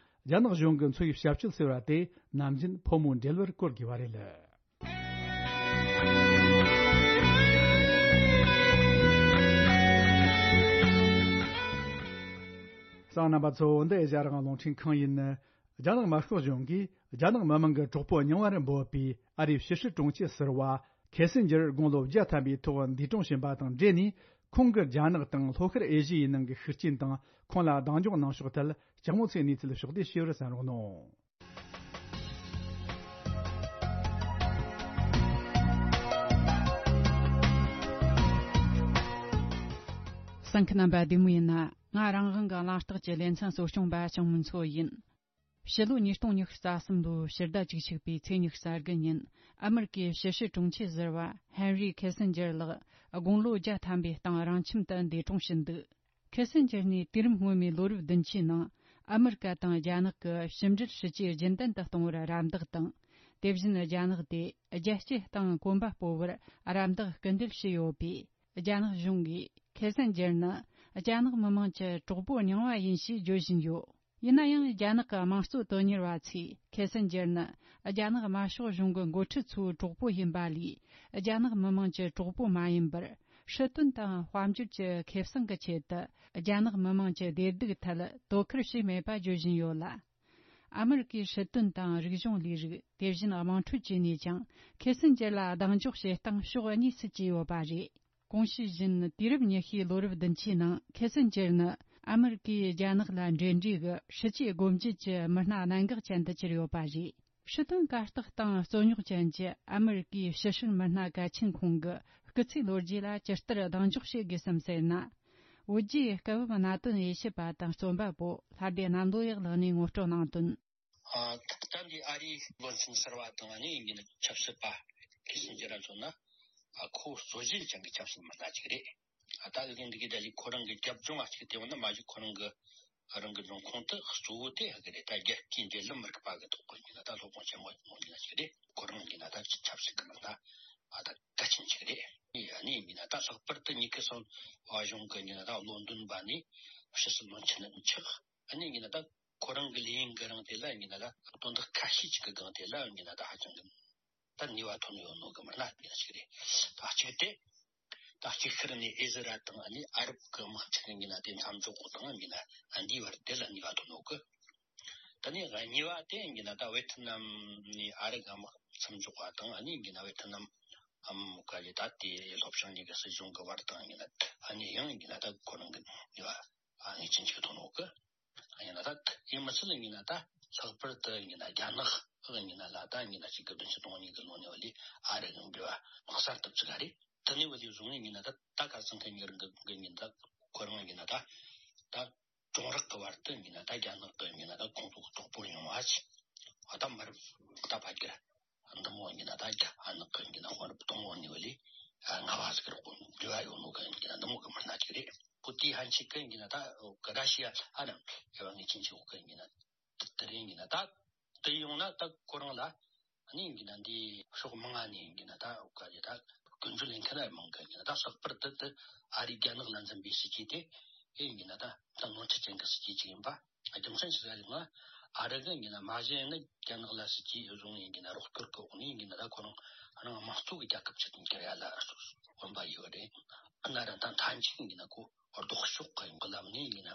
རྒྱ་ནག་གཞུང་གིས་འཚོ་བའི་བྱ་སྤྱོད་ཟེར་བ་དེ་ནམ་རྒྱུན་ཕོ་མོའི་འབྲེལ་བར་བཀོལ་དགོས་པ་རེད། གསན་མཁན་རྣམ་པ་ཚོ། འདི་ཨེ་ཤ་ཡ་རང་དབང་རླུང་འཕྲིན་ཁང་ཡིན། རྒྱ་ནག་དམར་ཤོག་གཞུང་གིས་རྒྱ་ནག་མི་དམངས་ཀྱི་གྲོགས་པོ་རྙིང་བར་འབོད་པའི་ཨ་རིའི་ཕྱི་སྲིད་དྲུང་ཆེ་ཟུར་པ་ཁེ་སིན་ཇར་དགུང་ལོ་བརྒྱ་ཐམ་པའི་ཐོག་འདས་གྲོངས་ཕྱིན་པ་དང་འབྲེལ་ནས། ཁོང་གིས་རྒྱ་ནག་དང་ལྷོ་ཤར་ཨེ་ཤི་ཡའི་ནང་གི་ཤུགས་རྐྱེན་དང་ཁོང་ལ་གདེང་འཇོག་གནང་ཕྱོགས་ཐད་ལྕགས་མོ་ཚེ་གནས་ཚུལ་ཕྱོགས་བསྡུས་ཞུ་བར་གསན་རོགས་གནང་། གསན་མཁན་རྣམ་པ་བདེ་མོ་ཡིན་ན། ང་རང་དབང་གི་གླེང་སྟེགས་ཀྱི་ལེ་ཚན་གཙོ་སྐྱོང་པ་ཆང་མུན་མཚོ་ཡིན། ཕྱི་ལོ་ཉིས་སྟོང་ཉི་ཤུ་རྩ་གསུམ་ལོའི་ཕྱི་ཟླ་བཅུ་གཅིག་པའི་ཚེས་ཉི་ཤུ་རྩ་དགུ་ཉིན། ཨ་མེ་རི་ཀའི་ཕྱི་སྲིད་དྲུང་ཆེ་ཟུར་པ་ཧན་རི་ཁེ་སིན་ཇར་ལགས་དགུང་ལོ་བརྒྱ་ཐམ་པའི་སྟེང་རང་ཁྱིམ་དུ་འདས་གྲོངས་ཕྱིན་འདུག་ཁེ་སིན་ཇར་ནས་དུས་རིམ་སྔོན་མའི་ལོ་རབས་བདུན་ཅུའི་ནང་ཨ་མེ་རི་ཀ་དང་རྒྱ་ནག་གི་ཕྱི་འབྲེལ་སྲིད་ཇུས་རྒྱུན་ལྡན་དུ་གཏོང་བར་རམ་འདེགས་དང་། དེ་བཞིན་རྒྱ་ནག་དེ་རྒྱལ་སྤྱིའི་སྟེང་གོམ་པ་སྤོ་བར་རམ་འདེགས་སྐུལ་འདེད་བྱས་ཡོད་པས། རྒྱ་ནག་གཞུང་གིས་ཁེ་སིན་ཇར་ནི་རྒྱ་ནག་མི་དམངས་ཀྱི་གྲོགས་པོ་རྙིང་བ་ཡིན་ཞེས་བརྗོད་བཞིན་ཡོད། ཡིན་ན་ཡང་། རྒྱ་ནག་གི་དམངས་གཙོ་དོན་གཉེར་བ་ཚོས་ཁེ་སིན་ཇར་ནི་རྒྱ་ནག་དམར་ཤོག་གཞུང་གི་འགོ་ཁྲིད་ཚོའི་གྲོགས་པོ་ཡིན་པ་ལས། རྒྱ་ནག་མི་དམངས་ཀྱི་གྲོགས་པོ་མ་ཡིན་པར། སྲིད་དོན་དང་དཔལ་འབྱོར་གྱི་ཁེ་བཟང་གི་ཆེད་དུ། རྒྱ་ནག་མི་དམངས་ཀྱི་བདེ་སྡུག་ཐད་དོ་ཁུར་བྱས་མེད་པ་བརྗོད་བཞིན་ཡོད་ལ། ཨ་མེ་རི་ཀའི་སྲིད་དོན་དང་རིག་གཞུང་ལས་རིགས། དེ་བཞིན་དམངས་ཁྲོད་བཅས་ནས་ཀྱང་། ཁེ་སིན་ཇར་ལ་གདེང་འཇོག་བྱེད་སྟངས་ཕྱོགས་གཉིས་སུ་གྱེས་ཡོད་པ་རེད། གོང་ཞུས་བཞིན། དུས་རབས་ཉི་ཤུའི་ལོ་རབས་བདུན་ཅུའི་ནང་། ཁེ་སིན་ཇར་ནི་ཨ་མེ་རི་ཀས་རྒྱ་ནག་ལ་འབྲེལ་འདྲིས་ཀྱི་སྲིད་ཇུས་སྒོ་འབྱེད་ཀྱི་མི་སྣ་གནད་འགག་ཅན་དུ་གྱུར་ཡོད་པ་རེད། སྲིད་དོན་གར་སྟེགས་སྟེང་རྩོད་རྙོག་ཅན་གྱི་ཨ་མེ་རི་ཀའི་ཕྱི་སྲིད་མི་སྣ་གལ་ཆེན་ཁོང་གི་སྐུ་ཚེའི་ལོ་རྒྱུས་ལ་ཇི་ལྟར་གདེང་འཇོག་བྱེད་དགོས་སམ་ཟེར་ན། བོད་རྒྱའི་སྐབས་བབ་གནད་དོན་དབྱེ་ཞིབ་པ་དང་རྩོམ་པ་པོ་ལྷ་སྡེ་གནམ་ལོ་ཡག་ལགས་ནས་ངོ་སྤྲོད་གནང་དོན། ཨ། ད་ལྟ་འདི་ཨ་རིའི་བློན་ཆེན་གསར་པ་དང་ཨ་ནི་ཡིན་གྱི་ཆབ་སྲིད་པ་ཁེ་སིན་ཇར་ལ་མཚོན་ན། ཨ། ཁོ་རྩོད་གཞི་ཅན་གྱི་ཆབ་སྲིད་མི་སྣ་ཅིག་རེད། ཨ། ད་ཨ་ཀིན་འདི་གི་ད་ལི་ཁོ་རང་གི་རྒྱབ་ལྗོངས་ཨ་ཅིག་དེ་འོ་ན་མ་གཞི་ཁོ་རང་གི་རང་གི་འབྱུང་ཁུངས་དེ་གཙོ་བོ་དེ་ཧ་གི་རེད། ད་རྒྱལ་སྤྱིའི་འབྲེལ་ལམ་མི་རིག་པ་གི་ཐོག་གི་ཡིན་ན་ད་སློབ་དཔོན་ཆེན་མོ་ཡིན་ན་ཅིག་རེད། ཁོ་རང་ཡིན་ན་ད་ཆབ་སྲིད་ཀྱི་མི་སྣ་ཨ་ད་གལ་ཆེན་ཅིག་རེད། ཨ་ནི་ཡིན་ན་ད་ལྷག་པར་དུ་ཉི་ཁེ་སང་བ་གཞུང་གི་ཡིན་ན་ད་བློ་འདོན་པ་ནི་ཕྱི་སྲིད་བློན་ཆེན་ཆགས། ཨ་ནི་ཡིན་ན་ད་ཁོ་རང་གི་ལས་ཡུན་གི་རིང་དེ་ལ་ཡིན་ན་ད་དོན་དག་ཁ་ཤས་ཅིག་གི་སྒང་དེ་ལ་ཡིན་ན་ད་ཧ་ཅང་གི་ད་ནུས་པ་ཐོན་ཡོད་ནོ་གི་མི་སྣ་ཡིན་ཞིག་རེད། ད་གཅིག་དེ། ད་གཅིག་ཤར་ནས་ཨི་ཟི་རལ་དང་ཨ་ནི་ཨ་རབ་ཀྱི་དམག་འཁྲུག་ཡིན་ན་དེ་མཚམས་འཇོག་གོ་དང་ཡིན་ན་འདིའི་བར་དེ་ལ་ནུས་པ་ཐོན་ནོ་གི། ད་ནི་གཉིས་པ་དེ་ཡིན་ན་ད་ཝེ་ཐི་ནམ་ནས་ཨ་རི་གི་དམག་མཚམས་འཇོག་པ་དང་ཨ་ནི་ཡིན་ན་ཝེ་ཐི་ནམ་ཨམ་ག་ལི་ད་དེ་ལྷོ་བྱང་གཉིས་ཀྱི་སྲིད་གཞུང་གི་བར་དང་ཡིན་ན་ཨ་ནི་ཡང་ཡིན་ན་ད་ཁོ་རང་གི་ནུས་པ་ངེས་ཅན་ཅིག་ཐོན་ནོ་གི། ཡིན་ན་ད་ཡིན་མི་ཚད་ཡིན་ན་ད་ལྷག་པར་དུ་ཡིན་ན་རྒྱ་ནག་ཡིན་ན་ལ་ད་ཡིན་ན་གཅིག་གི་བདུན་ཅུ་དོན་གཉིས་ཀྱི་ལོ་ནས་བ་ལས་ཨ་རི་གི་འབྲེལ་བ་དམག་གསར་ཐུབ་ཅིག་ག་རེད། དེ་ནས་བ་ལས་བཟུང་ཡིན་ན་ད་ད་ག་ཚང་གི་ཉེ་རིང་གི་ཡིན་ད་ཁོ་རང་ཡིན་ན་ད་ད་གྱོང་རག་གི་བར་དུ་ཡིན་ན་ད་རྒྱ་ནག་གི་ཡིན་ན་ད་ཁོང་ཚོ་གི་གྲོགས་པོ་ཡོང་བ་ཅི་ཨ་ད་མར་ད་ཕ་གིར་འདི་མོ་ཡིན་ན་ད་རྒྱ་ཨ་ནག་གི་ཡིན་ན་དཔོན་རབས་དང་བོ་ནས་བ་ལས་ལྔ་བ་ཟིག་རོགས་འབྲེལ་བ་ཡོད་ནོ་གི་ཡིན་ན་འདི་མོ་གི་མི་སྣ་ཅིག་རེད། ཁོ་དེའི་ཕན་ཆད་ཀྱི་ཡིན་ན་ད་ར་ཤི་ཡ་ཨ་ནམ་ཨེ་བ་ངེས་ཅན་ཆེ་བོ་གི་ཡིན་ན་དེ་རིང་ཡིན་ན་ད་དེ་ཡོང་ན་ད་ཁོ་རང་ལ་ཨ་ནི་ཡིན་ན་འདི་ཕྱོགས་མང་ང་ནས་ཡིན་ན་ད་ག་རེ་ད་ཀུན་སྤྱོད་ལེན་མཁན་ཨེ་མང་གི་ཡིན་ན་ད་ལྷག་པར་དུ་དེ་ཨ་རི་རྒྱ་ནག་ལ་འཛིན་པའི་སྲིད་ཇུས་དེ་ཨེ་ཡིན་ན་ད་ད་ནོར་འཁྲུལ་ཅན་གྱི་སྲིད་ཇུས་ཅིག་ཡིན་པ། རྒྱུ་མཚན་ཞིག་ལ་ཡིན་ན་ཨ་རི་གི་ཡིན་ན་མ་གཞི་ཡིན་ན་རྒྱ་ནག་ལ་སྲིད་ཇུས་བཟུང་ཡིན་ན་རོགས་སྐྱོར་གི་འོག་ནས་ཡིན་ན་ད་ཁོ་རང་རང་དམངས་གཙོ་གི་རྒྱལ་ཁབ་ཅིག་ཏུ་འགྱུར་ཡ་ལ་དབང་པ་ཡོད་རེད། ཨ་ན་ར་ད་མཐའ་མཇུག་ཡིན་ན་ཁོ་ལྡོག་ཕྱོགས་ཀྱི་ཡོང་གི་ལམ་ནས་ཡིན་ན་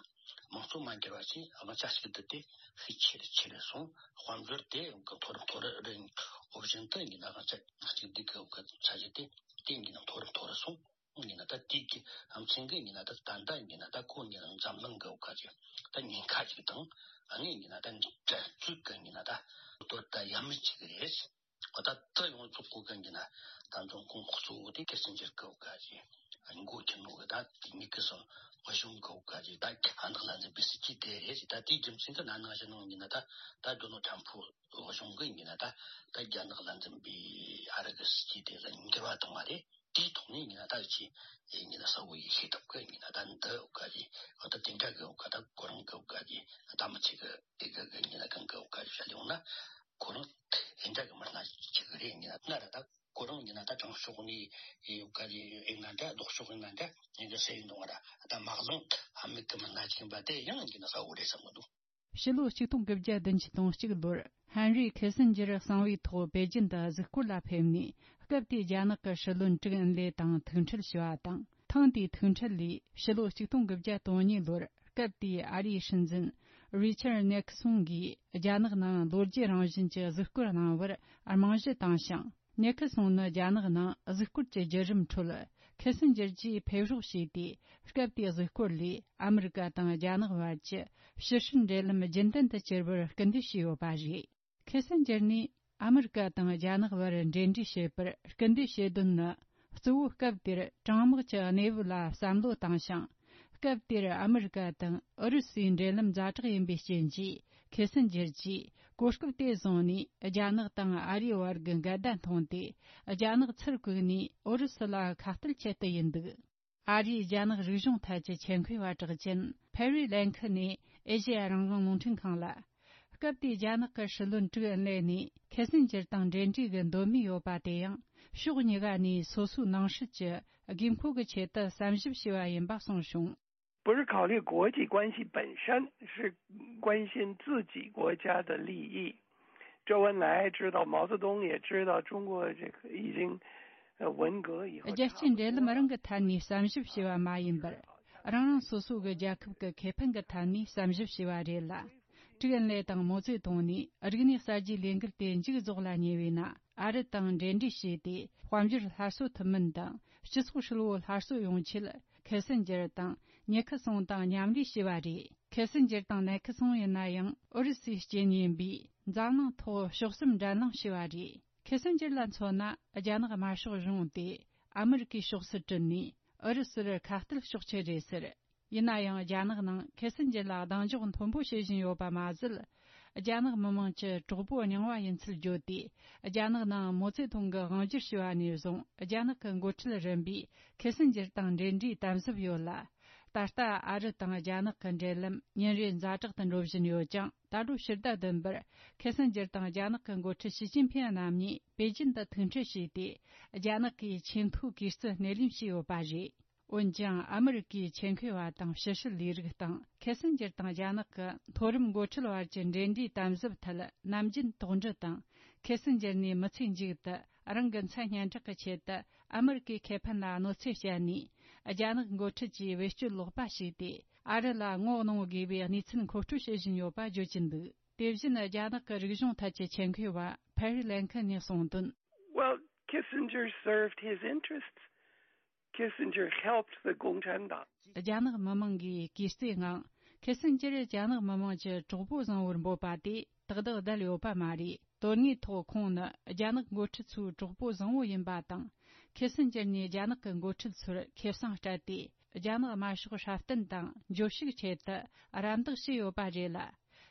དམངས་གཙོ་མ་འགྱུར་བ་ཞིག་དབང་ཆ་ཞིག་བསྡུ་དེ་ཤུགས་ཆེ་རུ་ཆེ་རུ་སོང་། དཔལ་འབྱོར་དེ་མཐོ་རུ་མཐོ་རུ་རིང་འོ་བཞིན་དུ་ཡིན་ན་དབང་ཆ་གཅིག་སྡུད་ཀྱི་ས་གཞི་དེ་དེ་ཡིན་ན་མཐོ་རུ་མཐོ་རུ་སོང་། ཡིན་ན་ད་དེའི་གི་ཨམ་ཆིང་གི་ཡིན་ན་ད་ད་ལྟ་ཡིན་ན་ད་ཁོ་ཡིན་ན་འཛམ་གླིང་གི་འོག་ག་ཅིག་ད་ཉེན་ཁ་ཅིག་དང་ཨ་ནི་ཡིན་ན་ད་འགྲན་རྩོད་གི་ཡིན་ན་ད་དོ་ད་ཡ་མི་ཅིག་རེད། ད་ད་ཡོངས་རྫོགས་གོ་གི་ཡིན་ན་ད་འཛིན་སྐྱོང་གཙོ་བོ་དེ་ཁེ་སིན་ཇེར་གི་འོག་ག་ཅིག་འགོ་ཁྱེར་ནོ་གི་ད་དེ་ཉིད་ཀྱི་སོ་གཞུང་གི་འོག་ག་ཅིག་ད་ཁ་ནག་ལ་འཛིན་པའི་སྲིད་ཇུས་དེ་རེད། ད་དེའི་རྒྱུ་མཚན་གྱི་ན་ནང་བཞིན་ནང་ཡིན་ན་ད་ད་རྡོ་ནལ་ཁྲམ་ཕུ་གཞུང་གི་ཡིན་ན་ད་ད་རྒྱ་ནག་ལ་འཛིན་པའི་ཨ་རི་གི་སྲིད་ཇུས་དེ་ལ་འགྱུར་བ་བཏང་བ་རེད། དེའི་ཐོག་ནས་ཡིན་ན་ད་ཅི་ཡིན་ན་གསལ་བོ་ཡིན་ཤེས་ཐུབ་གི་ཡིན་ན་ད་འདི་འོག་ག་ཅིག་ད་དེ་འདྲ་གི་འོག་ག་ད་ཁོ་རང་གི་འོག་ག་ཅིག་ད་མི་ཚེ་གི་དེ་གི་གི་ཡིན་ན་གང་གི་འོག་ག་ཅིག་བཤད་ཡོང་ན་ཁོ་རང་དེ་འདྲ་གི་མི་སྣ་ཅིག་གི་རེད། ཡིན་ན་ན་ར་ད་ཁོ་རང་ཡིན་ན་ད་དྲང་ཕྱོགས་ནས་འོག་ག་ཅིག་ཡིན་ན་འདྲ་ལྡོག་ཕྱོགས་ཡིན་ན་འདྲ་ཡིན་གི་ཟེར་ཡིན་འདུག་ང་ར་ད་མ་གླང་ཨ་མི་གི་མི་སྣ་ཅིག་ཡིན་པ་དེ་ཡང་ཡིན་ན་གསལ་བོ་རེད་བསམ་གི་འདུག་ཕྱི་ལོ་ཆིག་སྟོང་དགུ་བརྒྱ་བདུན་ཅུ་དོན་གཅིག་ལོར་ཧན་རི་ཁེ་སིན་ཇེར་གསང་བའི་ཐོག་པེ་ཅིན་དུ་གཟིགས་སྐོར་ལ་ཕེབས་ནས་སྐབས་དེའི་རྒྱ་ནག་གི་སྲིད་བློན་ཀྲིག་ཨིན་ལེ་དང་ཐུག་འཕྲད་བྱས་པ་དང་། ཐེངས་དེའི་ཐུག་འཕྲད་ལས་ཕྱི་ལོ་ཆིག་སྟོང་དགུ་བརྒྱ་དོན་གཉིས་ལོར་སྐབས་དེའི་ཨ་རིའི་སྲིད་འཛིན་རི་ཆར་ནེག་སོན་གྱིས་རྒྱ་ནག་ནང་ལོ་བརྒྱད་རང་བཞིན་གྱི་གཟིགས་སྐོར་གནང་བར་རྨང་གཞི་བཏིང་ཞིང་། ཉེ་ཁི་སོང་ནི་རྒྱ་ནག་ནང་གཟིགས་སྐོར་གྱི་བརྒྱུད་རིམ་ཁྲོད་ཁེ་སིན་ཇེར་གྱིས་ཕེབས་རོགས་བྱས་ཏེ། སྐབས་དེའི་གཟིགས་སྐོར་ལས་ཨ་མི་རི་ཀ་དང་རྒྱ་ནག་བར་གྱི་ཕྱི་སྲིད་འབྲེལ་ལམ་རྒྱུན་ལྡན་དུ་གྱུར་བར་སྐུལ་འདེད་བྱས་ཡོད་པ་རེད། ཁེ་སིན་ཇེར་ནས་ཨ་མི་རི་ཀ་དང་རྒྱ་ནག་བར་འབྲེལ་འདྲིས་བྱེད་པར་སྐུལ་འདེད་བྱེད་དོན་ནི། གཙོ་བོ་སྐབས་དེར་གྲང་དམག་གི་གནས་བབ་ལ་བསམ་བློ་བཏང་ཞིང་། སྐབས་དེར་ཨ་མི་རི་ཀ་དང་ཨུ་རུ་སུའི་འབྲེལ་ལམ་ཛ་དྲག་ཡིན་པའི་རྐྱེན་གྱིས། ཁེ་སིན་ཇེར་གྱིས་གོ་སྐབས་དེ་བཟུང་ནས་རྒྱ་ནག་དང་ཨ་རིའི་བར་གྱི་འགལ་ཟླ་མཐོང་སྟེ། རྒྱ་ནག་ཚུར་བཀུག་ནས་ཨུ་རུ་སུ་ལ་ཁ་གཏད་ཆེད་དུ་ཡིན་འདུག་ཨ་རིའི་རྒྱ་ནག་རིག་གཞུང་ཐད་ཀྱི་ཆེད་མཁས་པ་གྲགས་ཅན་ཕེ་རི་ལན་ཁི་ནས་ཨེ་ཤེ་ཡ་རང་དབང་རླུང་འཕྲིན་ཁང་ལ། སྐབས་དེའི་རྒྱ་ནག་གི་སྲིད་བློན་ཀྲིག་ཨིན་ལེ་ནས་ཁེ་སིན་ཇེར་དང་འབྲེལ་འདྲིས་ཀྱི་འདོད་མོས་ཡོད་པ་དེ་ཡང་ཕྱོགས་གཉིས་ཀ་ནས་སོ་སོའི་ནང་སྲིད་ཀྱི་དགོས་མཁོ་གི་ཆེད་དུ་བསམ་ཞིབ་བྱས་པ་ཡིན་པ་གསུངས་བྱུང་། 不是考虑国际关系本身，是关心自己国家的利益。周恩来知道，毛泽东也知道，中国这个已经，呃，文革以后。རྒྱལ་སྤྱིའི་འབྲེལ་ལམ་རང་གི་ཐད་ནས་བསམ་ཞིབ་བྱས་པ་མ་ཡིན་པར། རང་རང་སོ་སོ་གི་རྒྱལ་ཁབ་ཀྱི་ཁེ་ཕན་གྱི་ཐད་ནས་བསམ་ཞིབ་བྱས་པ་རེད་ལ། ཀྲིག་ཨིན་ལེ་དང་མའོ་ཙེ་ཏུང་ནས་རིག་གནས་གསར་བརྗེའི་ལས་འགུལ་དེ་མཇུག་རྫོགས་ལ་ཉེ་བས་ན། ཨ་རི་དང་འབྲེལ་འདྲིས་བྱས་ཏེ། དཔལ་འབྱོར་སླར་གསོ་ཐུབ་མིན་དང་། སྤྱི་ཚོགས་ཧྲིལ་བོ་སླར་གསོ་ཡོང་ཆེད། ཁེ་སིན་ཇེར་དང་ཉེ་ཁི་སོང་དང་མཉམ་ལས་བྱས་པ་རེད། ཁེ་སིན་ཇེར་དང་ནེ་ཁི་སོང་ཡིན་ན་ཡང་ཨུ་རུ་སུའི་རྐྱེན་ཡིན་པས། འཛམ་གླིང་ཐོག་ཕྱོགས་གསུམ་འགྲན་གླེང་བྱས་པ་རེད། ཁེ་སིན་ཇེར་ལ་མཚོན་ན། རྒྱ་ནག་དམར་ཤོག་གཞུང་དེ་ཨ་མི་རི་ཀའི་ཕྱོགས་སུ་དྲུད་ནས། ཨུ་རུ་སུར་ཁ་གཏད་གཅོག་ཆེད་རེད་ཟེར། ཡིན་ན་ཡང་། རྒྱ་ནག་ནང་ཁེ་སིན་ཇེར་ལ་གདེང་འཇོག་མཐོན་པོ་བྱེད་བཞིན་ཡོད་པ་མ་ཟད། རྒྱ་ནག་མི་དམངས་ཀྱི་གྲོགས་པོ་རྙིང་བ་ཡིན་ཚུལ་བརྗོད་དེ། རྒྱ་ནག་ནང་མའོ་ཙེ་ཏུང་གི་དབང་སྒྱུར་བྱས་པ་ནས་བཟུང་། རྒྱ་ནག་གི་འགོ་ཁྲིད་རིམ་པས་ཁེ་སིན་ཇེར་དང་འབྲེལ་འདྲིས་དམ་ཟབ་ཡོད་ལ། ད་ལྟ་ཨ་རི་དང་རྒྱ་ནག་གི་འབྲེལ་ལམ་ཉིན་རེ་ཛ་དྲག་ཏུ་འགྲོ་བཞིན་ཡོད་ཀྱང་། ད་ལོ་ཕྱི་ཟླ་བདུན་པར་ཁེ་སིན་ཇེར་དང་རྒྱ་ནག་གི་འགོ་ཁྲིད་ཞི་ཅིན་ཕིན་རྣམ་གཉིས་པེ་ཅིན་དུ་ཐུག་འཕྲད་བྱས་ཏེ། རྒྱ་ནག་གི་ཆེས་མཐོའི་གུས་བརྩི་སྣེ་ལེན་བྱས་ཡོད་པ་རེད། འོན་ཀྱང་། ཨ་མི་རི་ཀའི་ཆེད་མཁས་པ་དང་ཕྱི་སྲིད་ལས་རིགས་དང་། ཁེ་སིན་ཇེར་དང་རྒྱ་ནག་གི་མཐོ་རིམ་འགོ་ཁྲིད་བར་གྱི་འབྲེལ་འདྲིས་དམ་ཟབ་ཐད་ནམ་རྒྱུན་དོགས་འདྲི་དང་། ཁེ་སིན་ཇེར་ནས་མི་ཚེའི་མཇུག་ཏུ་རང་གི་མཚན་སྙན་གྲགས་ཀྱི་ཆེད་དུ་ཨ་མི་རི་ཀའི་ཁེ་ཕན་ལ་གནོད་འཚེ་བསྐྱལ་ནས། རྒྱ་ནག་འགོ་ཁྲིད་ཀྱིས་བེད་སྤྱོད་ལོག་པ་བྱས་ཏེ། ཨ་རི་ལ་ངོ་གནོང་དགོས་པའི་གནས་ཚུལ་མཁོ་སྤྲོད་བྱེད་བཞིན་ཡོད་པ་བརྗོད་ཀྱིན་འདུག་དེ་བཞིན། རྒྱ་ནག་གི་རིག་གཞུང་ཐད་ཀྱི་ཆེད་མཁས་པ་ཕེ་རི་ལན་ཁི་ནས་གསུངས་དོན། Well, Kissinger served his interests. Kissinger helped the Gongchan Dang. རྒྱ་ནག་མི་དམངས་ཀྱིས་གུས་བརྩིའི་ངང་། ཁེ་སིན་ཇེར་རྒྱ་ནག་མི་དམངས་ཀྱི་གྲོགས་པོ་བཟང་བོར་འབོད་པ་དེ་ཏག་ཏག་བསྡད་ཡོད་པ་མ་རེད། དོན་དངོས་ཐོག་ཁོང་ནི་རྒྱ་ནག་འགོ་ཁྲིད་ཚོའི་གྲོགས་པོ་བཟང་བོ་ཡིན་པ་དང་། ཁེ་སིན་ཇེར་ནས་རྒྱ་ནག་གི་འགོ་ཁྲིད་ཚོར་ཁེ་བཟང་སྤྲད་དེ། རྒྱ་ནག་དམར་ཤོག་སྲ་བརྟན་དང་འབྱོར་ཕྱུག་ཆེད་དུ་རམ་འདེགས་བྱས་ཡོད་པ་རེད་ལ།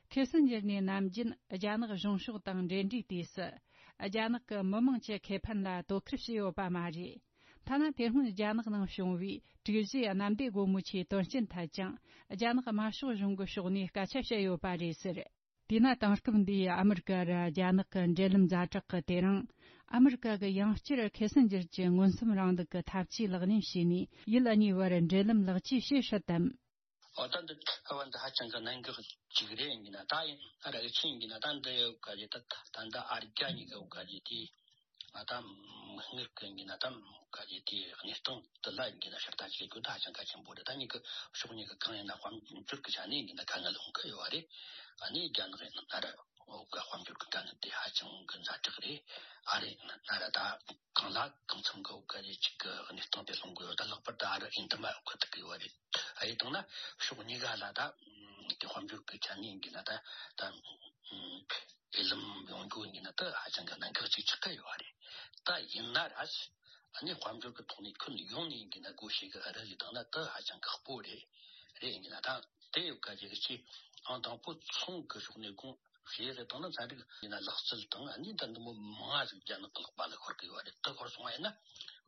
ཁེ་སིན་ཇེར་ནས་ནམ་རྒྱུན་རྒྱ་ནག་གཞུང་ཕྱོགས་དང་འབྲེལ་འདྲིས་དུས་སུ། རྒྱ་ནག་གི་མི་དམངས་ཀྱི་ཁེ་ཕན་ལ་དོ་ཁུར་བྱས་ཡོད་པ་མ་རེད། ཐ་ན་དེ་སྔོན་རྒྱ་ནག་ནང་བྱུང་བའི་དྲུག་བཞིའི་གནམ་བདེ་སྒོ་མོ་ཆེའི་དོན་རྐྱེན་ཐད་ཀྱང་། རྒྱ་ནག་དམར་ཤོག་གཞུང་གི་ཕྱོགས་ནས་སྐད་ཆ་བཤད་ཡོད་པ་རེད་ཟེར། དེས་ན་དེང་སྐབས་འདིའི་ཨ་མི་རི་ཀ་ར་རྒྱ་ནག་གི་འབྲེལ་ལམ་ཛ་དྲག་གི་དེ་རིང་། ཨ་མི་རི་ཀ་གི་ཡང་བསྐྱར་ཁེ་སིན་ཇེར་གྱི་མངོན་སུམ་རིང་ལུགས་ཀྱི་ཐབས་ཇུས་ལག་ལེན་བྱས་ནས་ཡུལ་གཉིས་བར་འབྲེལ་ལམ་ལེགས་བཅོས་བྱེད་སྲིད་དམ། འོ་ད་འདི་ཐ་བ་འདི་ཧ་ཅང་གི་གནད་འགག་ཅིག་རེད་ཡིན་ན། ད་ཡིན་ཨ་ར་ཨི་ཆིན་ཡིན་ན་ད་འདི་ཡོད་ག་ཅིག་ད་ད་འདི་ཨ་རྒྱ་གཉིས་ཀ་ཡོད་ག་ཅིག་དེ་ང་ད་མིག་སྔར་གི་ཡིན་ན་ད་ག་ཅིག་དེ་གནས་སྟངས་འདི་ལ་ཡིན་ན་ཕྱིར་ལྟ་བྱེད་རྒྱུ་ད་ཧ་ཅང་གལ་ཆེན་པོ་རེད། ད་གཉིས་ཀ་ཕྱོགས་གཉིས་ཀ་གང་ཡིན་ན་དཔལ་འབྱོར་གི་ཆ་ནས་ཡིན་ན་དཀའ་ངལ་འོང་གི་ཡོད་རེད། ཨ་ནི་རྒྱ་ནག་ཡིན་ན་ཨ་ར། འོ་ག་དཔལ་འབྱོར་གྱི་དཀའ་ངལ་དེ་ཧ་ཅང་གི་ཛ་དྲག་རེད། ཨ་རེ་ན་ར་ད་གང་ལ་གང་འཚམ་གི་འོ་ག་རེ་ཅིག་གི་གནས་སྟངས་དེ་སློང་དགོས་ཡོད། ད་ལྷག་པར་དུ་ཨ་རི་ཨིན་དུ་མ་འོ་ག་དེ་གི་ཡོད་རེད། ཨ་ཡེ་དང་ན་ཕྱོགས་གཉིས་ཀ་ལ་ད་དེ་དཔལ་འབྱོར་གྱི་ཆ་ནས་ཡིན་གྱི་ན་ད་ད་འོས་ལམ་ཡོང་རྒྱུ་ཡིན་གྱི་ན་ད་ཧ་ཅང་གི་གནད་འགག་ཅིག་ཆགས་ཀྱི་ཡོད་རེད། ད་ཡིན་ན་ར་ཨ་ནི་དཔལ་འབྱོར་གྱི་ཐོག་ནས་ཁྱོན་ཡོངས་ནས་ཡིན་གྱི་ན་སྒོ་ཕྱེ་གི་ཨ་རི་ལ་བཏང་ན་ད་ཧ་ཅང་ཁག་པོ་རེད། རེད་ཡིན་གྱི་ན་ད་དེ་ཡོད་ག་ཅིག་ཅིག་ཨང་དང་པོ་ཚོང་གི་ཕྱོགས་ནས་དགོངས་བཞེས་རེ་བཏང་ན་ཚན་རིག་ཡིན་ན་ལག་རྩལ་དང་ཨ་ནི་ད་འདི་མོ་མང་ང་ཟིག་རྒྱ་ནག་གི་ལག་པ་ལ་ཤོར་གི་ཡོད་རེད། དེ་ཤོར་སོང་བ་ཡིན་ན་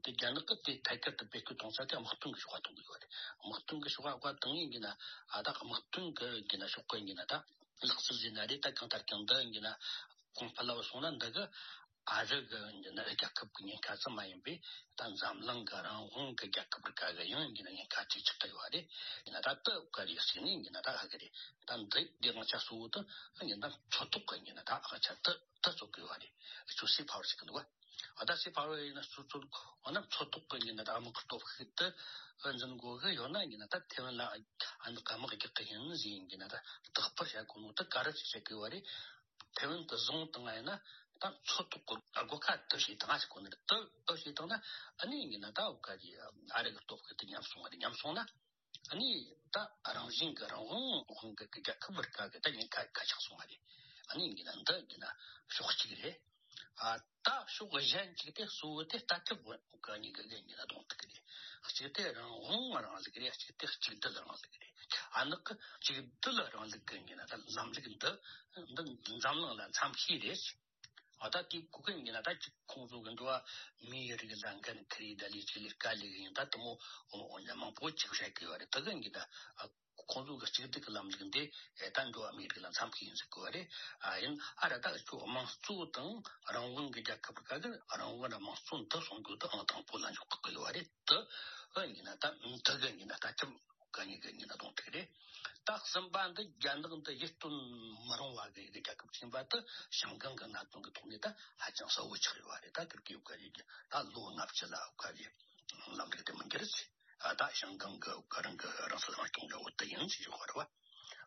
དེ་རྒྱ་ནག་གི་དེ་ཐད་ཀར་དུ་བེད་སྤྱོད་གཏོང་ས་དེ་དམག་དོན་གི་ཕྱོགས་གཏོང་གི་ཡོད་རེད། དམག་དོན་གི་ཕྱོགས་ག་བཏང་ཡིན་གྱི་ན་ཨ་ད་དམག་དོན་གི་ཡིན་གྱི་ན་ཕྱོགས་གི་ཡིན་གྱི་ན་ད་ལག་རྩལ་ཟེར་ན་རེད། ད་གང་ལྟར་ཀྱང་འདི་ཡིན་གྱི་ན་གོང་འཕེལ་ལ་སོང་ན་འདི་གི་ཨ་རི་གི་ཡིན་གྱི་ན་རྒྱལ་ཁབ་གི་ཉེན་ཁ་ཙམ་མ་ཡིན་པའི་ད་འཛམ་གླིང་གི་རང་དབང་གི་རྒྱལ་ཁབ་རིགས་ག་གི་ཡང་ཡིན་གྱི་ན་ཉེན་ཁ་ཅིག་ཆགས་ཀྱི་ཡོད་རེད། ཡིན་ན་ད་ལྟ་ག་རེ་ཟེར་ནས་ཡིན་གྱི་ན་ད་ཧ་གི་རེད། ད་འདི་འདི་དབང་ཆ་གཙོ་བོ་དེ་ཡིན་ན་མཚོ་ཐོག་གི་ཡིན་གྱི་ན་ད་དབང་ཆ་དེ་དེ་གཙོ་གི་ཡོད་རེད། ཁྱོད་སི་ཕ་ཝར་ཟེར་གི་འདུག་བ། ཨ་ད་སི་ཕ་ཝར་ཡིན་ན་སོ་སོ་འོ་ན་མཚོ་ཐོག་གི་ཡིན་ན་ད་དམག་གི་སྟོབས་ཤུགས་དེ་འཛིན་དགོས་གི་ཡོད་ན་ཡིན་ན་ད་ཐེ་ཝན་ལ་ཨ་ནི་དམག་རྒྱག་གི་ཡིན་ཟེར་ཡིན་གྱི་ན་ད་རྟག་པར་བྱ་དགོས་ནོ་དེ་ག་རེ་བྱེད་གི་ཡོད་རེད། ཐེ་ཝན་དུ་བཟུང་བཏང་ཡིན་ན་ད་མཚོ་ཐོག་གི་སྒོ་ཁ་དུ་ཞིག་དང་ཞིག་གོ་ནི་རེད། དུ་དུ་ཞིག་བཏང་ན་ཨ་ནི་ཡིན་ན་ད་འོ་ག་གི་ཨ་རི་གི་སྟོབས་ཤུགས་དེ་ཉམས་སོང་བ་རེད། ཉམས་སོང་ན་ཨ་ནི་ད་རང་བཞིན་གི་རང་དབང་དབང་གི་རྒྱལ་ཁབ་བར་ག་གི་ད་ཉེན་ཁ་ཁ་ཆག་སོང་བ་རེད། ཨ་ནི་ཡིན་ན་འདི་ཡིན་ན་ཕྱོགས་གཅིག་རེད། ཨ་ད་ཕྱོགས་གཞན་གཅིག་དེ་གཙོ་བོ་དེ་ལྟ་གྲུབ་གི་གཉིས་ཀ་གི་ཡིན་ན་གདོང་ཐུག་གི་རེད། གཅིག་དེ་རང་དབང་རང་ལུགས་རེད། གཅིག་དེ་གཅིག་སྡུད་རང་ལུགས་རེད། ཨ་ནི་གཅིག་སྡུད་རང་ལུགས་ཀྱི་ཡིན་ན་ད་ལམ་ལུགས་འདི་འདི་འཛམ་གླིང་ལ་འཚམ་ཤོས་རེད། ཨ་ད་དེ་གོ་གི་ཡིན་ན་ད་ཅིག་ཁོང་ཚོ་གི་འགྲོ་བ་མིའི་རིགས་ལ་འགན་འཁུར་ཡི་ད་ལས་ཆེ་ལས་དཀའ་ལས་ཡིན་ད་དུ་མོ་འོ་ཡ་མང་པོ་ཅིག་བཤད་གི་ཡོད་རེད། དེ་གི་ཡིན་ད་ཁོང་ཚོ་གི་གཅིག་སྡུད་ཀྱི་ལམ་ལུགས་འདི་ད་འགྲོ་བ་མིའི་རིགས་ལ་འཚམ་གི་ཡིན་ཟེར་གི་ཡོད་རེད། ཨ་ཡིན་ཨ་ར་ད་ཁྱོད་དམངས་གཙོ་དང་རང་དབང་གི་རྒྱལ་ཁབ་ག་གི་རང་དབང་ར་དམངས་གཙོ་འདི་སྲུང་རྒྱུ་དེ་ཨང་དང་པོ་ལ་འཇོག་གི་ཡོད་རེད། དེ་ཨ་ཡིན་ན་ད་དེ་གི་ཡིན་ན་ད་ཅི། ག་ཉིད་ཀྱི་ཉིན་ན་གཏོང་ཐུག་རེད། ད་གསུམ་པ་འདི་རྒྱ་ནག་འདི་ཡིད་རྟོན་མི་རུང་བ་གི་རྒྱལ་ཁབ་ཆེན་པ་དེ་ཞང་ཀང་གི་གནད་དོན་གྱི་ཐོག་ནས་ད་ཧ་ཅང་གསལ་བོ་ཆགས་ཡོད་རེད། ད་ཀིར་ཀིའུ་ག་རེད་ད་ལོ་ལྔ་བཅུ་ལ་ག་རེད་ལམ་ལུགས་དེ་མི་འགྱུར་ཟེར། ད་ཞང་ཀང་གི་ག་རང་གི་རང་སྲིད་རང་སྐྱོང་འདྲ་བོ་དེ་ཡིན་ཟེར་ཡོད་རེད་བ།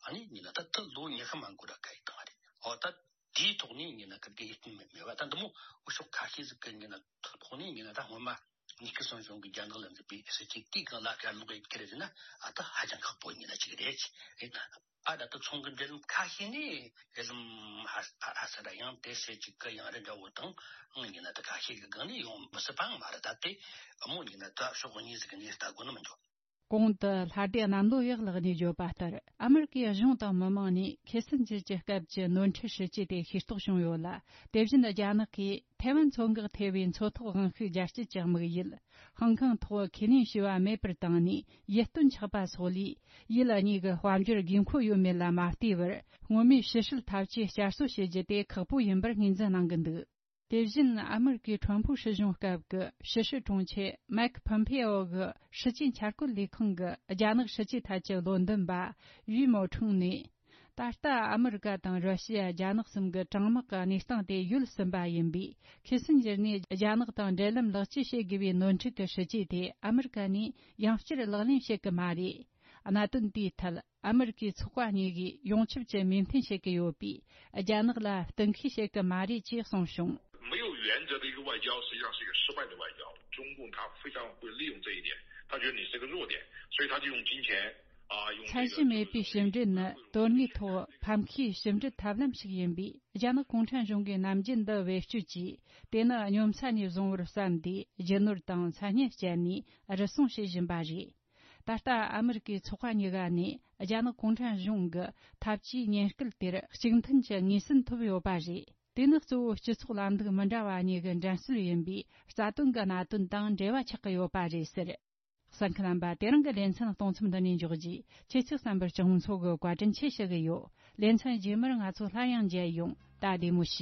ཨ་ནི་ཉིན་ན་ད་ད་ལོ་ཉི་ཤུ་མ་འགོར་ར་ག་ཡི་བཏང་རེད། ཨོ་ད། དེའི་ཐོག་ནས་ཡིན་ན་ཀིར་ཀི་ཡིད་རྟོན་མེད་མེད་པ་ད་འདི་མོ་འུ་ཤོག་ཁ་ཤས་ཟིག་གི་ཡིན་ན་ཐོག་ནས་ཡིན་ན་ད་སྔོན་མ་ནིག་སོན་གཞུང་གི་རྒྱ་ནག་ལ་མཛད་པའི་སྲིད་ཇུས་དེའི་སྒང་ལ་ག་ལོག་ཡིན་ཁྱེར་ཟིན་ན་ཨ་ད་ཧ་ཅང་ཁག་པོ་ཡིན་ན་ཅིག་རེད། ཨ་ད་ད་ཚོང་གི་འབྲེལ་ལམ་ཁ་ཤས་ནས་འབྲེལ་ལམ་ཧ་ཧ་ཧ་ས་ར་ཡང་དེ་སྲིད་ཅིག་གི་ཡང་རེ་འདྲ་བོ་དང་ཡིན་ན་ད་ཁ་ཤས་ཀྱི་སྒང་ནས་ཡོང་མི་སྲིད་པའང་མ་རེད། ད་དེ་མོ་ཡིན་ན་ད་ཕྱོགས་གཉིས་ཟིག་གི་ནས་ལྟ་དགོས་ནི་མི་འདུག་གོང་དུ་ལྷ་སྡེ་གནམ་ལོ་ཡག་ལགས་ནས་བརྗོད་པ་ལྟར། ཨ་མེ་རི་ཀའི་གཞུང་དང་མི་མང་ནས་ཁེ་སན་ཇར་གྱི་སྐབས་ཀྱི་ནོར་འཁྲུལ་སྲིད་ཇུས་དེ་ཤེས་རྟོགས་བྱུང་ཡོད་ལ། དེ་བཞིན་རྒྱ་ནག་གིས་ཐའེ་ཝན་མཚོ་འགག་ཐེ་བའི་མཚོ་ཐོག་དབང་ཤུགས་རྒྱ་སྐྱེད་ཀྱི་དམིགས་ཡུལ་ཧང་ཀང་ཐོག་ཁས་ལེན་བྱས་པ་མེད་པར་བཏང་ནས་ཡིད་རྟོན་ཆགས་པ་སོགས་ལས། ཡུལ་གཉིས་ཀྱི་དཔལ་འབྱོར་དགོས་མཁོ་ཡོད་མེད་ལ་མ་ལྟོས་པར། སྔོན་མའི་ཕྱི་སྲིད་འཐབ་ཇུས་བསྐྱར་གསོ་བྱེད་རྒྱུ་དེ་ཁག་པོ་ཡིན་པར་ངོས་འཛིན་གནང་གི་འདུག་དེ་བཞིན་ཨ་མེ་རི་ཀའི་ཁྲོམ་ཕུག་སྲིད་གཞུང་སྐབས་ཀྱི་ཕྱི་སྲིད་དྲུང་ཆེ་མེག་ཕོམ་ཕེ་ཨོ་གི་སྲིད་ཇུས་འཆར་བཀོད་ལས་ཁང་གི་རྒྱ་ནག་སྲིད་ཇུས་ཐད་ཀྱི་བློ་འདོན་པ་ཡུས་མོ་ཁྲུང་ནས། ད་ལྟ་ཨ་མེ་རི་ཀ་དང་ར་ཤི་ཡ། རྒྱ་ནག་གསུམ་གྱི་གྲང་དམག་གི་གནས་སྟངས་དེ་ཡོལ་ཟིན་པ་ཡིན་པས། ཁེ་སན་ཇར་ནས་རྒྱ་ནག་དང་འབྲེལ་ལམ་ལེགས་བཅོས་བྱེད་དགོས་པའི་ནོར་འཁྲུལ་གྱི་སྲིད་ཇུས་དེ་ཨ་མེ་རི་ཀ་ནས་ཡང་བསྐྱར་ལག་ལེན་བྱེད་ཀྱི་མ་རེད། གནད་དོན་དེའི་ཐད། ཨ་མེ་རི་ཀའི་ཚོགས་པ་གཉིས་ཀས་ཡོངས་ཁྱབ་ཀྱི་མོས་མཐུན་བྱེད་ཀྱི་ཡོད་པས། རྒྱ་ནག་ལ་གཏན་འཁེལ་བྱེད་ཀྱི་མ་རེད་ཅེས་གསུངས་བྱུང་། 没有原则的一个外交，实际上是一个失败的外交。中共他非常会利用这一点，他觉得你是个弱点，所以他就用金钱啊，用这个 ཚད་གཞི་མེད་པའི་ཕྱི་འབྲེལ་ནི་དོན་དངོས་ཐོག་ཕམ་ཁའི་ཕྱི་འབྲེལ་ཐབས་ལམ་ཞིག་ཡིན་པས། རྒྱ་ནག་གུང་ཁྲན་གཞུང་གིས་ནམ་རྒྱུན་འདི་བེད་སྤྱོད་ཀྱིས། དེ་ནི་སྙོམས་ས་ནས་བཟུང་བར་བསམ་སྟེ། རྒྱུ་ནོར་དང་མཚན་སྙན་སྤྱད་ནས་རུལ་སུངས་བྱེད་བཞིན་པ་རེད། ད་ལྟ་ཨ་མེ་རི་ཀའི་ཚོགས་པ་གཉིས་ཀ་ནས་རྒྱ་ནག་གུང་ཁྲན་གཞུང་གི་འཐབ་ཇུས་ཉེན་སྐུལ་དེར་གཅིག་མཐུན་གྱི་ངོས་ཟིན་ཐོབ་ཡོད་པ་རེད། དེ་ནི་གཙོ་བོ་སྤྱི་ཚོགས་ལམ་ལུགས་མི་འདྲ་བ་གཉིས་ཀྱི་འགྲན་རྩོད་ཡིན་པས། རྩ་དོན་གྱི་གནད་དོན་དང་འབྲེལ་བ་ཆགས་ཀྱི་ཡོད་པ་རེད་ཟེར། གསན་མཁན་རྣམ་པ། དེ་རིང་གི་ལེ་ཚན་གཏོང་མཚམས་འདི་ནས་འཇོག་རྗེས། ཁྱེད་ཚོས་གསན་པར་སྤྱི་ཡོངས་ཚོགས་ཀྱི་བཀའ་དྲིན་ཆེ་ཞུ་གི་ཡོད། ལེ་ཚན་རྗེས་མར་ང་ཚོ་སླར་ཡང་མཇལ་ཡོང་། ད་བདེ་མོ་བྱོས།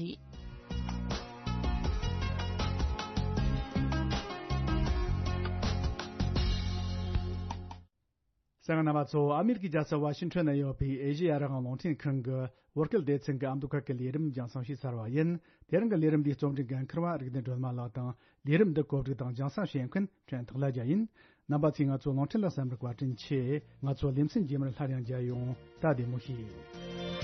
གསན་མཁན་རྣམ་པ་ཚོ། ཨ་མེ་རི་ཀའི་རྒྱལ་ས་ཝ་ཤིང་ཊོན་ན་ཡོད་པའི་ཨེ་ཤེ་ཡ་རང་དབང་རླུང་འཕྲིན་ཁང་གི་བོད་སྐད་སྡེ་ཚན་གྱི་ཨ་མདོ་ཁུལ་གྱི་ལས་རིམ་རྒྱང་སྲིང་ཞུས་ཚར་བ་ཡིན། དེ་རིང་གི་ལས་རིམ་འདིའི་རྩོམ་སྒྲིག་འགན་འཁུར་བ་རིག་ལྡན་སྒྲོལ་མ་ལགས་དང་། ལས་རིམ་འདི་གོ་སྒྲིག་དང་རྒྱང་སྲིང་བྱེད་མཁན་ཕྲན་ཐག་ལ་རྒྱལ་ཡིན། རྣམ་པ་ཚོས་ང་ཚོ་རླུང་འཕྲིན་ལ་གསན་པར་བཀའ་དྲིན་ཆེ། ང་ཚོ་ལེ་ཚན་རྗེས་མར་སླར་ཡང་མཇལ་ཡོང་། ད་བདེ་མོ་བྱོས།